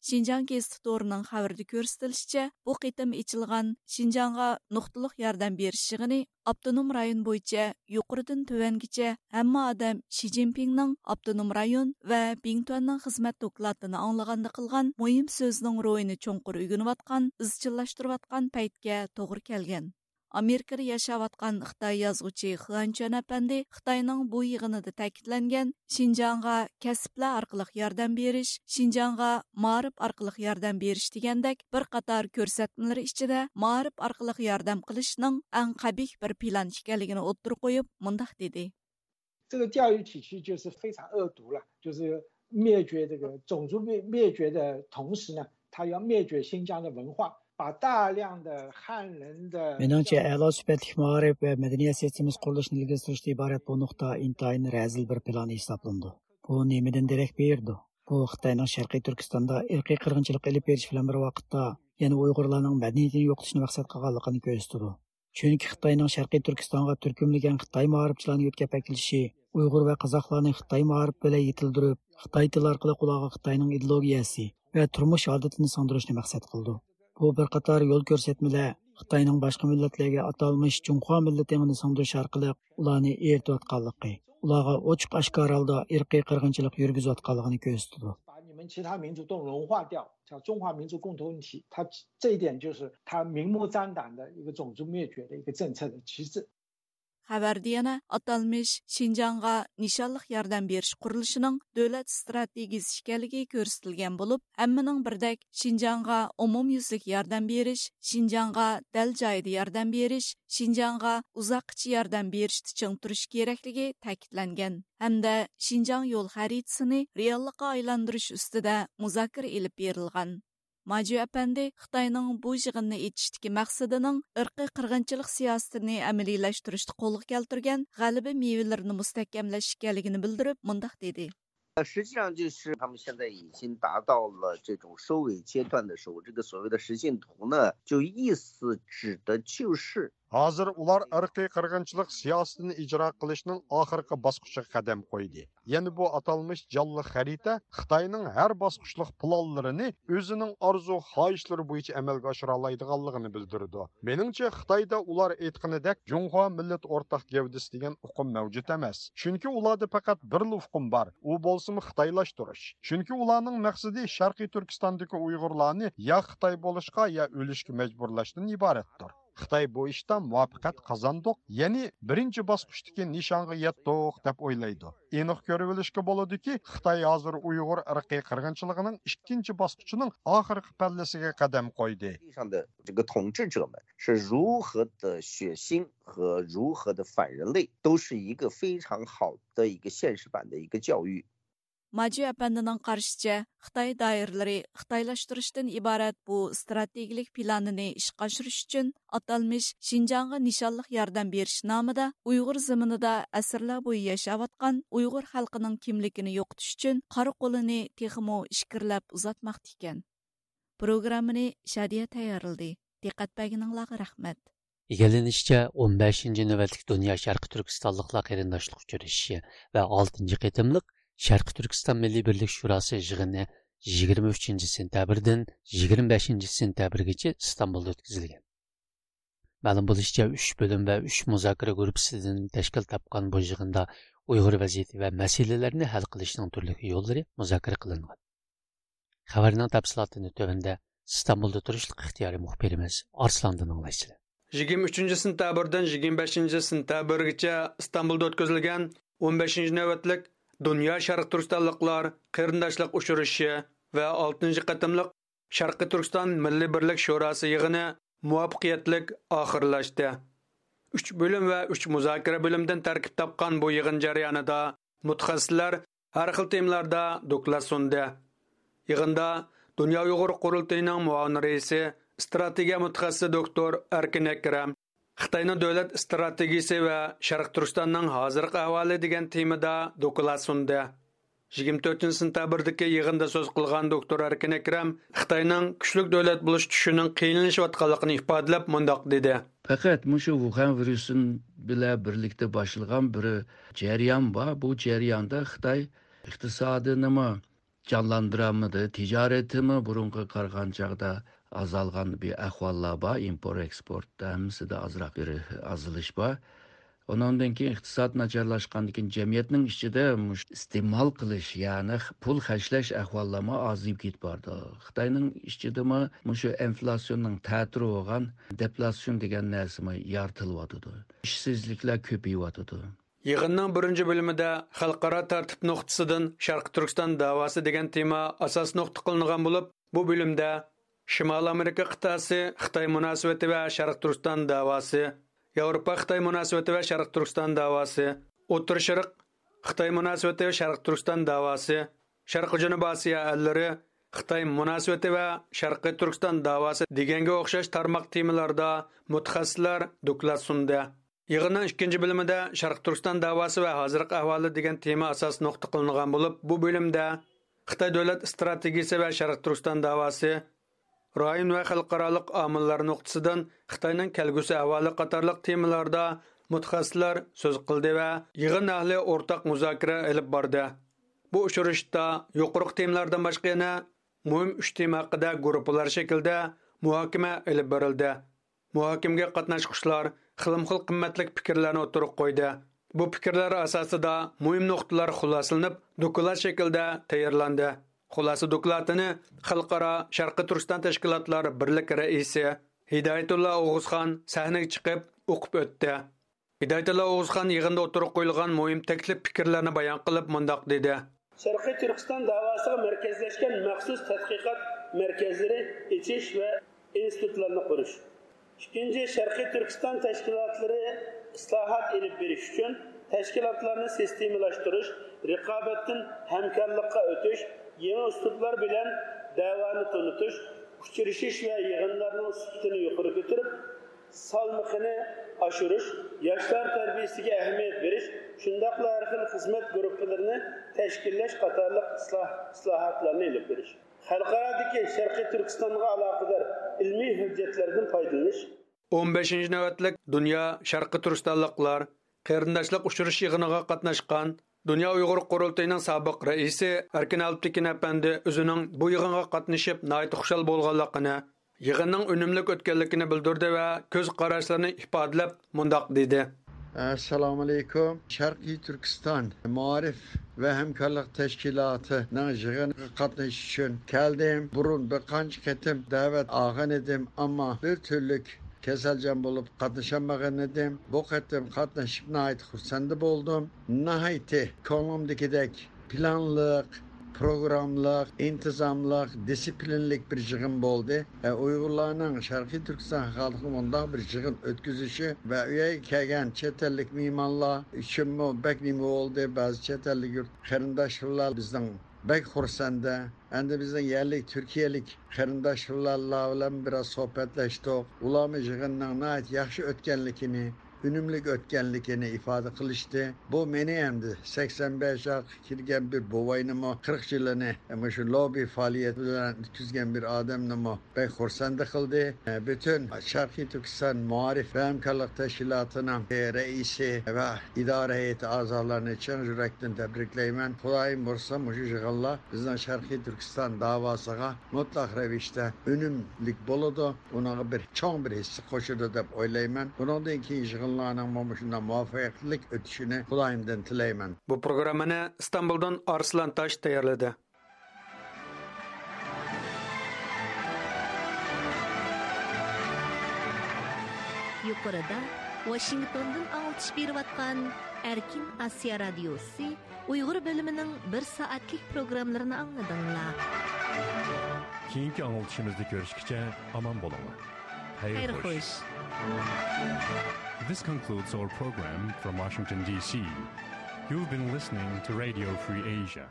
شىنجاڭ گېزىتى تورىنىڭ خەۋىرىدە كۆرسىتىلىشىچە، بۇ قېتىم ئېچىلغان شىنجاڭغا نۇقتىلىق ياردەم بېرىش يىغىنى ئاپتونوم رايون بويىچە يۇقىرىدىن تۆۋەنگىچە ھەممە ئادەم شى جىنپىڭنىڭ ئاپتونوم رايون ۋە بىڭتۈەننىڭ خىزمەت دوكلاتىنى ئاڭلىغاندا قىلغان مۇھىم سۆزىنىڭ روھىنى چوڭقۇر ئۆگىنىۋاتقان، ئىزچىللاشتۇرۇۋاتقان پەيتكە توغرا كەلگەن. ئامېرىكىدا ياشاۋاتقان خىتاي يازغۇچى خۇەن چۈەن ئەپەندى خىتاينىڭ بۇ يىغىنىدا تەكىتلەنگەن شىنجاڭغا كەسىپلەر ئارقىلىق ياردەم بېرىش، شىنجاڭغا مائارىپ ئارقىلىق ياردەم بېرىش دېگەندەك بىر قاتار كۆرسەتمىلىرى ئىچىدە مائارىپ ئارقىلىق ياردەم قىلىشنىڭ ئەڭ قەبىھ بىر پىلان ئىكەنلىكىنى ئوتتۇرىغا قويۇپ، مۇنداق دېدى. 这个钓鱼体系就是非常恶毒了，就是灭绝这个种族灭灭绝的同时呢，它要灭绝新疆的文化，把大量的汉人的 مېنىڭچە، ئەلا سۈپەتلىك مائارىپ ۋە مەدەنىيەت سىستېمىسى قۇرۇلۇشىنى ئىلگىرى سۈرۈشتىن ئىبارەت بۇ نۇقتا ئىنتايىن رەزىل بىر پىلان ھېسابلىنىدۇ. بۇ نېمىدىن دېرەك بېرىدۇ؟ بۇ خىتاينىڭ شەرقىي تۈركىستاندا ئىرقىي قىرغىنچىلىق ئېلىپ بېرىش بىلەن بىر ۋاقىتتا، يەنە ئۇيغۇرلارنىڭ مەدەنىيىتىنى يوقىتىشنى مەقسەت قىلغانلىقىنى كۆرسىتىدۇ. چۈنكى خىتاينىڭ شەرقىي تۈركىستانغا تۈركۈملىگەن خىتاي مائارىپچىلارنى يۆتكەپ ئەكېلىشى ئۇيغۇر ۋە قازاقلارنى خىتاي مائارىپى بىلەن يېتىلدۈرۈپ، خىتاي تىلى ئارقىلىق ئۇلارغا خىتاينىڭ ئىدېئولوگىيەسى ۋە تۇرمۇش ئادىتىنى سىڭدۈرۈشنى مەقسەت قىلىدۇ. بۇ بىر قاتار يول كۆرسەتمىلەر خىتاينىڭ باشقا مىللەتلەرگە ئاتالمىش جۇڭخۇا مىللىتى ئېڭىنى سىڭدۈرۈش ئارقىلىق ئۇلارنى ئېرىتىۋاتقانلىقى، ئۇلارغا ئوچۇق ئاشكارا ھالدا ئىرقىي قىرغىنچىلىق يۈرگۈزۈۋاتقانلىقىنى كۆرسىتىدۇ. 把你们其他民族都融化掉，叫中华民族共同体，它这一点就是它明目张胆的一个种族灭绝的一个政策的旗帜。 خەۋەردە يەنە ئاتالمىش شىنجاڭغا نىشانلىق ياردەم بېرىش قۇرۇلۇشىنىڭ دۆلەت ئىستراتېگىيىسى ئىكەنلىكى كۆرسىتىلگەن بولۇپ، ھەممىنىڭ بىردەك شىنجاڭغا ئومۇميۈزلۈك ياردەم بېرىش، شىنجاڭغا دەل جايىدا ياردەم بېرىش، شىنجاڭغا ئۇزاققىچە ياردەم بېرىشتە چىڭ تۇرۇش كېرەكلىكى تەكىتلەنگەن ھەمدە شىنجاڭ يول خەرىتىسىنى رېئاللىققا ئايلاندۇرۇش ئۈستىدە مۇزاكىرە ئېلىپ بېرىلغان. ماجۈ ئەپەندى خىتاينىڭ بۇ يىغىننى ئېچىشتىكى مەقسىتىنىڭ ئىرقىي قىرغىنچىلىق سىياسىتىنى ئەمەلىيلەشتۈرۈشتە قولغا كەلتۈرگەن غەلىبە مېۋىلىرىنى مۇستەھكەملەش ئىكەنلىكىنى بىلدۈرۈپ، مۇنداق دېدى. 实际上就是他们现在已经达到了这种收尾阶段的时候，这个所谓的实现图呢，就意思指的就是 ھازىر ئۇلار ئىرقىي قىرغىنچىلىق سىياسىتىنى ئىجرا قىلىشنىڭ ئاخىرقى باسقۇچىغا قەدەم قويدى. يەنە بۇ ئاتالمىش جانلىق خەرىتە خىتاينىڭ ھەر باسقۇچلۇق پىلانلىرىنى ئۆزىنىڭ ئارزۇ خاھىشلىرى بويىچە ئەمەلگە ئاشۇرالايدىغانلىقىنى بىلدۈرىدۇ. مېنىڭچە، خىتايدا ئۇلار ئېيتقىنىدەك جۇڭخۇا مىللەت ئورتاق گەۋدىسى دېگەن ئۇقۇم مەۋجۇت ئەمەس. چۈنكى ئۇلاردا پەقەت بىرلا ئۇقۇم بار، ئۇ بولسىمۇ خىتايلاشتۇرۇش. چۈنكى ئۇلارنىڭ مەقسىتى شەرقىي تۈركىستاندىكى ئۇيغۇرلارنى يا خىتاي بولۇشقا، يا ئۆلۈشكە مەجبۇرلاشتىن ئىبارەتتۇر. خىتاي بۇ ئىشتا مۇۋەپپەقىيەت قازاندۇق، يەنى بىرىنچى باسقۇچتىكى نىشانغا يەتتۇق دەپ ئويلايدۇ. ئېنىق كۆرۈۋېلىشكە بولىدۇكى، خىتاي ھازىر ئۇيغۇر ئىرقىي قىرغىنچىلىقىنىڭ ئىككىنچى باسقۇچىنىڭ ئاخىرقى پەللىسىگە قەدەم قويدى. 地上的这个统治者们是如何的血腥和如何的反人类，都是一个非常好的一个现实版的一个教育。ماجۈ ئەپەندىنىڭ قارىشىچە، خىتاي دائىرىلىرى خىتايلاشتۇرۇشتىن ئىبارەت بۇ ئىستراتېگىيەلىك پىلانىنى ئىشقا ئاشۇرۇش ئۈچۈن ئاتالمىش شىنجاڭغا نىشانلىق ياردەم بېرىش نامىدا ئۇيغۇر زېمىنىدا ئەسىرلەر بويى ياشاۋاتقان ئۇيغۇر خەلقىنىڭ كىملىكىنى يوقىتىش ئۈچۈن قارا قولىنى تېخىمۇ ئىچكىرىلەپ ئۇزارتماقتا ئىكەن. پروگراممىنى شادىيە تەييارلىدى. دىققەت بەرگىنىڭلارغا رەھمەت. ئىگىلىنىشىچە، ئون بەشىنچى نۆۋەتلىك دۇنيا شەرقىي تۈركىستانلىقلار قېرىنداشلىق ئۇچرىشىشى ۋە ئالتىنچى قېتىملىق شەرقىي تۈركىستان مىللىي بىرلىك شوراسى يىغىنى يىگىرمە ئۈچىنچى سېنتەبىردىن يىگىرمە بەشىنچى سېنتەبىرگىچە ئىستانبۇلدا ئۆتكۈزۈلگەن. مەلۇم بولۇشىچە، ئۈچ بۆلۈم ۋە ئۈچ مۇزاكىرە گۇرۇپپىسىدىن تەشكىل تاپقان بۇ يىغىندا ئۇيغۇر ۋەزىيىتى ۋە مەسىلىلەرنى ھەل قىلىشنىڭ تۈرلۈك يوللىرى مۇزاكىرە قىلىنغان. خەۋەرنىڭ تەپسىلاتىنى تۆۋەندە ئىستانبۇلدا تۇرۇشلۇق ئىختىيارىي مۇخبىرىمىز ئارسلاندىن ئاڭلايسىلەر. يىگىرمە ئۈچىنچى سېنتەبىردىن يىگىرمە بەشىنچى سېنتەبىرگىچە ئىستانبۇلدا ئۆتكۈزۈلگەن ئون بەشىنچى نۆۋەتلىك دۇنيا شەرقىي تۈركىستانلىقلار قېرىنداشلىق ئۇچرىشىشى ۋە ئالتىنچى قېتىملىق شەرقىي تۈركىستان مىللىي بىرلىك شوراسى يىغىنى مۇۋەپپەقىيەتلىك ئاخىرلاشتى. ئۈچ بۆلۈم ۋە ئۈچ مۇزاكىرە بۆلۈمىدىن تەركىب تاپقان بۇ يىغىن جەريانىدا مۇتەخەسسىسلەر ھەر خىل تېمىلاردا دوكلات سۇندى. يىغىندا دۇنيا ئۇيغۇر قۇرۇلتىيىنىڭ مۇئاۋىن رەئىسى، ئىستراتېگىيە مۇتەخەسسىسى دوكتور ئەركىن ئەكرەم، خىتاينىڭ دۆلەت ئىستراتېگىيىسى ۋە شەرقىي تۈركىستاننىڭ ھازىرقى ئەھۋالى دېگەن تېمىدا دوكلات سۇندى. يىگىرمە تۆتىنچى سېنتەبىردىكى يىغىندا سۆز قىلغان دوكتور ئەركىن ئەكرەم خىتاينىڭ كۈچلۈك دۆلەت بولۇش چۈشىنىڭ قىيىنلىشىۋاتقانلىقىنى ئىپادىلەپ مۇنداق دېدى. پەقەت مۇشۇ ۋۇخەن ۋىرۇسى بىلەن بىرلىكتە باشلىغان بىر جەريان بار. بۇ جەرياندا خىتاي ئىقتىسادىنىمۇ جانلاندۇرالمىدى. تىجارىتىمۇ بۇرۇنقىغا قارىغان چاغدا ئازالغان بىر ئەھۋاللار بار. ئىمپورت ئېكسپورتتا ھەممىسىدە ئازراق بىر ئازىلىش بار. ئۇنىڭدىن كېيىن ئىقتىساد ناچارلاشقاندىن كېيىن جەمئىيەتنىڭ ئىچىدە مۇش-، ئىستېمال قىلىش، يەنى پۇل خەجلەش ئەھۋاللارمۇ ئازىيىپ كېتىپ بارىدۇ. خىتاينىڭ ئىچىدىمۇ مۇشۇ ئېنفلاتسىيوننىڭ تەتۈرى بولغان دېفلاتسىيون دېگەن نەرسىمۇ يارىتىلىۋاتىدۇ. ئىشسىزلىكلەر كۆپىيىۋاتىدۇ. يىغىننىڭ بىرىنچى بۆلۈمىدە خەلقئارا تەرتىپ نۇقتىسىدىن شەرقىي تۈركىستان دەۋاسى دېگەن تېما ئاساس نۇقتا قىلىنغان بولۇپ، بۇ بۆلۈمدە شىمالىي ئامېرىكا قىتئەسى خىتاي مۇناسىۋىتى ۋە شەرقىي تۈركىستان دەۋاسى، ياۋروپا خىتاي مۇناسىۋىتى ۋە شەرقىي تۈركىستان دەۋاسى، ئوتتۇرا شەرق خىتاي مۇناسىۋىتى ۋە شەرقىي تۈركىستان دەۋاسى، شەرقىي جەنۇبىي ئاسىيا ئەللىرى خىتاي مۇناسىۋىتى ۋە شەرقىي تۈركىستان دەۋاسى دېگەنگە ئوخشاش تارماق تېمىلاردا مۇتەخەسسىسلەر دوكلات سۇندى. يىغىننىڭ ئىككىنچى بۆلۈمىدە شەرقىي تۈركىستان دەۋاسى ۋە ھازىرقى ئەھۋالى دېگەن تېما ئاساس نۇقتا قىلىنغان بولۇپ، بۇ بۆلۈمدە خىتاي دۆلەت ئىستراتېگىيىسى ۋە شەرقىي تۈركىستان دەۋاسى، رايون ۋە خەلقئارالىق ئامىللار نۇقتىسىدىن خىتاينىڭ كەلگۈسى ئەھۋالى قاتارلىق تېمىلاردا مۇتەخەسسىسلەر سۆز قىلدى ۋە يىغىن ئەھلى ئورتاق مۇزاكىرە ئېلىپ باردى. بۇ ئۇچرىشىشتا يۇقىرىقى تېمىلاردىن باشقا يەنە مۇھىم ئۈچ تېما ھەققىدە گۇرۇپپىلار شەكلىدە مۇھاكىمە ئېلىپ بېرىلدى. مۇھاكىمىگە قاتناشقۇچىلار خىلمۇخىل قىممەتلىك پىكىرلەرنى ئوتتۇرىغا قويدى. بۇ پىكىرلەر ئاساسىدا مۇھىم نۇقتىلار خۇلاسىلىنىپ، دوكلات شەكلىدە تەييارلاندى. خۇلاسە دوكلاتىنى خەلقئارا شەرقىي تۈركىستان تەشكىلاتلار بىرلىك رەئىسى ھىدايەتۇللا ئوغۇزخان سەھنىگە چىقىپ ئوقۇپ ئۆتتى. ھىدايەتۇللا ئوغۇزخان يىغىندا ئوتتۇرىغا قويۇلغان مۇھىم تەكلىپ پىكىرلەرنى بايان قىلىپ مۇنداق دېدى. شەرقىي تۈركىستان دەۋاسىغا مەركەزلەشكەن مەخسۇس تەتقىقات مەركەزلىرى ئېچىش ۋە ئىنستىتۇتلارنى قۇرۇش. ئىككىنچى، شەرقىي تۈركىستان تەشكىلاتلىرى ئىسلاھات ئېلىپ بېرىش ئۈچۈن تەشكىلاتلارنى سىستېمىلاشتۇرۇش، رىقابەتتىن ھەمكارلىققا ئۆتۈش، يېڭى ئۇسلۇبلار بىلەن دەۋانى تونۇتۇش، ئۇچرىشىش ۋە يىغىنلارنىڭ سۈپىتىنى يۇقىرى كۆتۈرۈپ، سالمىقىنى ئاشۇرۇش، ياشلار تەربىيىسىگە ئەھمىيەت بېرىش، شۇنداقلا ھەر خىل خىزمەت گۇرۇپپىلىرىنى تەشكىللەش قاتارلىق ئىسلاھ-، ئىسلاھاتلارنى ئېلىپ بېرىش. خەلقئارادىكى شەرقىي تۈركىستانغا ئالاقىدار ئىلمىي ھۆججەتلەردىن پايدىلىنىش. ئون بەشىنچى نۆۋەتلىك دۇنيا شەرقىي تۈركىستانلىقلار قېرىنداشلىق ئۇچرىشىش يىغىنىغا قاتناشقان دۇنيا ئۇيغۇر قۇرۇلتىيىنىڭ سابىق رەئىسى ئەركىن ئەلپتېكىن ئەپەندى ئۆزىنىڭ بۇ يىغىنغا قاتنىشىپ ناھايىتى خۇشال بولغانلىقىنى، يىغىننىڭ ئۈنۈملۈك ئۆتكەنلىكىنى بىلدۈردى ۋە كۆز قاراشلىرىنى ئىپادىلەپ مۇنداق دېدى. ئەسسالامۇئەلەيكۇم. شەرقىي تۈركىستان مائارىپ ۋە ھەمكارلىق تەشكىلاتىنىڭ يىغىنىغا قاتنىشىش ئۈچۈن كەلدىم. بۇرۇن بىر قانچە قېتىم دەۋەت ئالغان ئىدىم، ئەمما بىر تۈرلۈك كېسەلچان بولۇپ قاتنىشالمىغان ئىدىم. بۇ قېتىم قاتنىشىپ ناھايىتى خۇرسەن بولدۇم. ناھايىتى كۆڭلۈمدىكىدەك پىلانلىق، پروگراممىلىق، ئىنتىزاملىق، دىسسىپلىنلىك بىر يىغىن بولدى. ئە، ئۇيغۇرلارنىڭ شەرقىي تۈركىستان خەلقىگە مۇنداق بىر يىغىن ئۆتكۈزۈشى ۋە ئۇ يەرگە كەلگەن چەت ئەللىك مېھمانلار ئۈچۈنمۇ بەك نېمە بولدى. بەزى چەت ئەللىك يۇرت قېرىنداشلار بىزنىڭ بەك خۇرسەندە. ئەمدى بىزنىڭ يەرلىك تۈركىيەلىك قېرىنداشلار بىلەن بىراز سۆھبەتلەشتۇق. ئۇلارمۇ يىغىننىڭ ناھايىتى ياخشى ئۆتكەنلىكىنى، ئۈنۈملۈك ئۆتكەنلىكىنى ئىپادە قىلىشتى. بۇ مېنى ئەمدى سەكسەن بەش ياشقا كىرگەن بىر بوۋاينىمۇ، قىرىق يىلىنى مۇشۇ لوببى پائالىيىتى بىلەن ئۆتكۈزگەن بىر ئادەمنىمۇ بەك خۇرسەندە قىلدى. پۈتۈن شەرقىي تۈركىستان مائارىپ ۋە ھەمكارلىق تەشكىلاتىنىڭ رەئىسى ۋە ئىدارە ھەيئىتى ئەزالىرىنى چىن يۈرەكتىن تەبرىكلەيمەن. خۇدايىم بۇيرۇسا، مۇشۇ يىغىنلار بىزنىڭ شەرقىي تۈركىستان داۋاسىغا مۇتلەق رەۋىشتە ئۈنۈملۈك بولىدۇ، ئۇنىڭغا بىر چوڭ بىر ھىسسە قوشىدۇ دەپ ئويلايمەن. بۇنىڭدىن كېيىن يىغىنلارنىڭمۇ مۇشۇنداق مۇۋەپپەقىيەتلىك ئۆتۈشىنى خۇدايىمدىن تىلەيمەن. بۇ پروگراممىنى ئىستانبۇلدىن ئارسلان تاش تەييارلىدى. يۇقىرىدا ۋاشىنگتوندىن ئاڭلىتىش بېرىۋاتقان ئەركىن ئاسىيا رادىيوسى ئۇيغۇر بۆلۈمىنىڭ بىر سائەتلىك پروگراممىلىرىنى ئاڭلىدىڭلار. كېيىنكى ئاڭلىتىشىمىزدا كۆرۈشكىچە ئامان بولۇڭلار. خەير خوش. This concludes our program from Washington, D C. You've been listening to Radio Free Asia.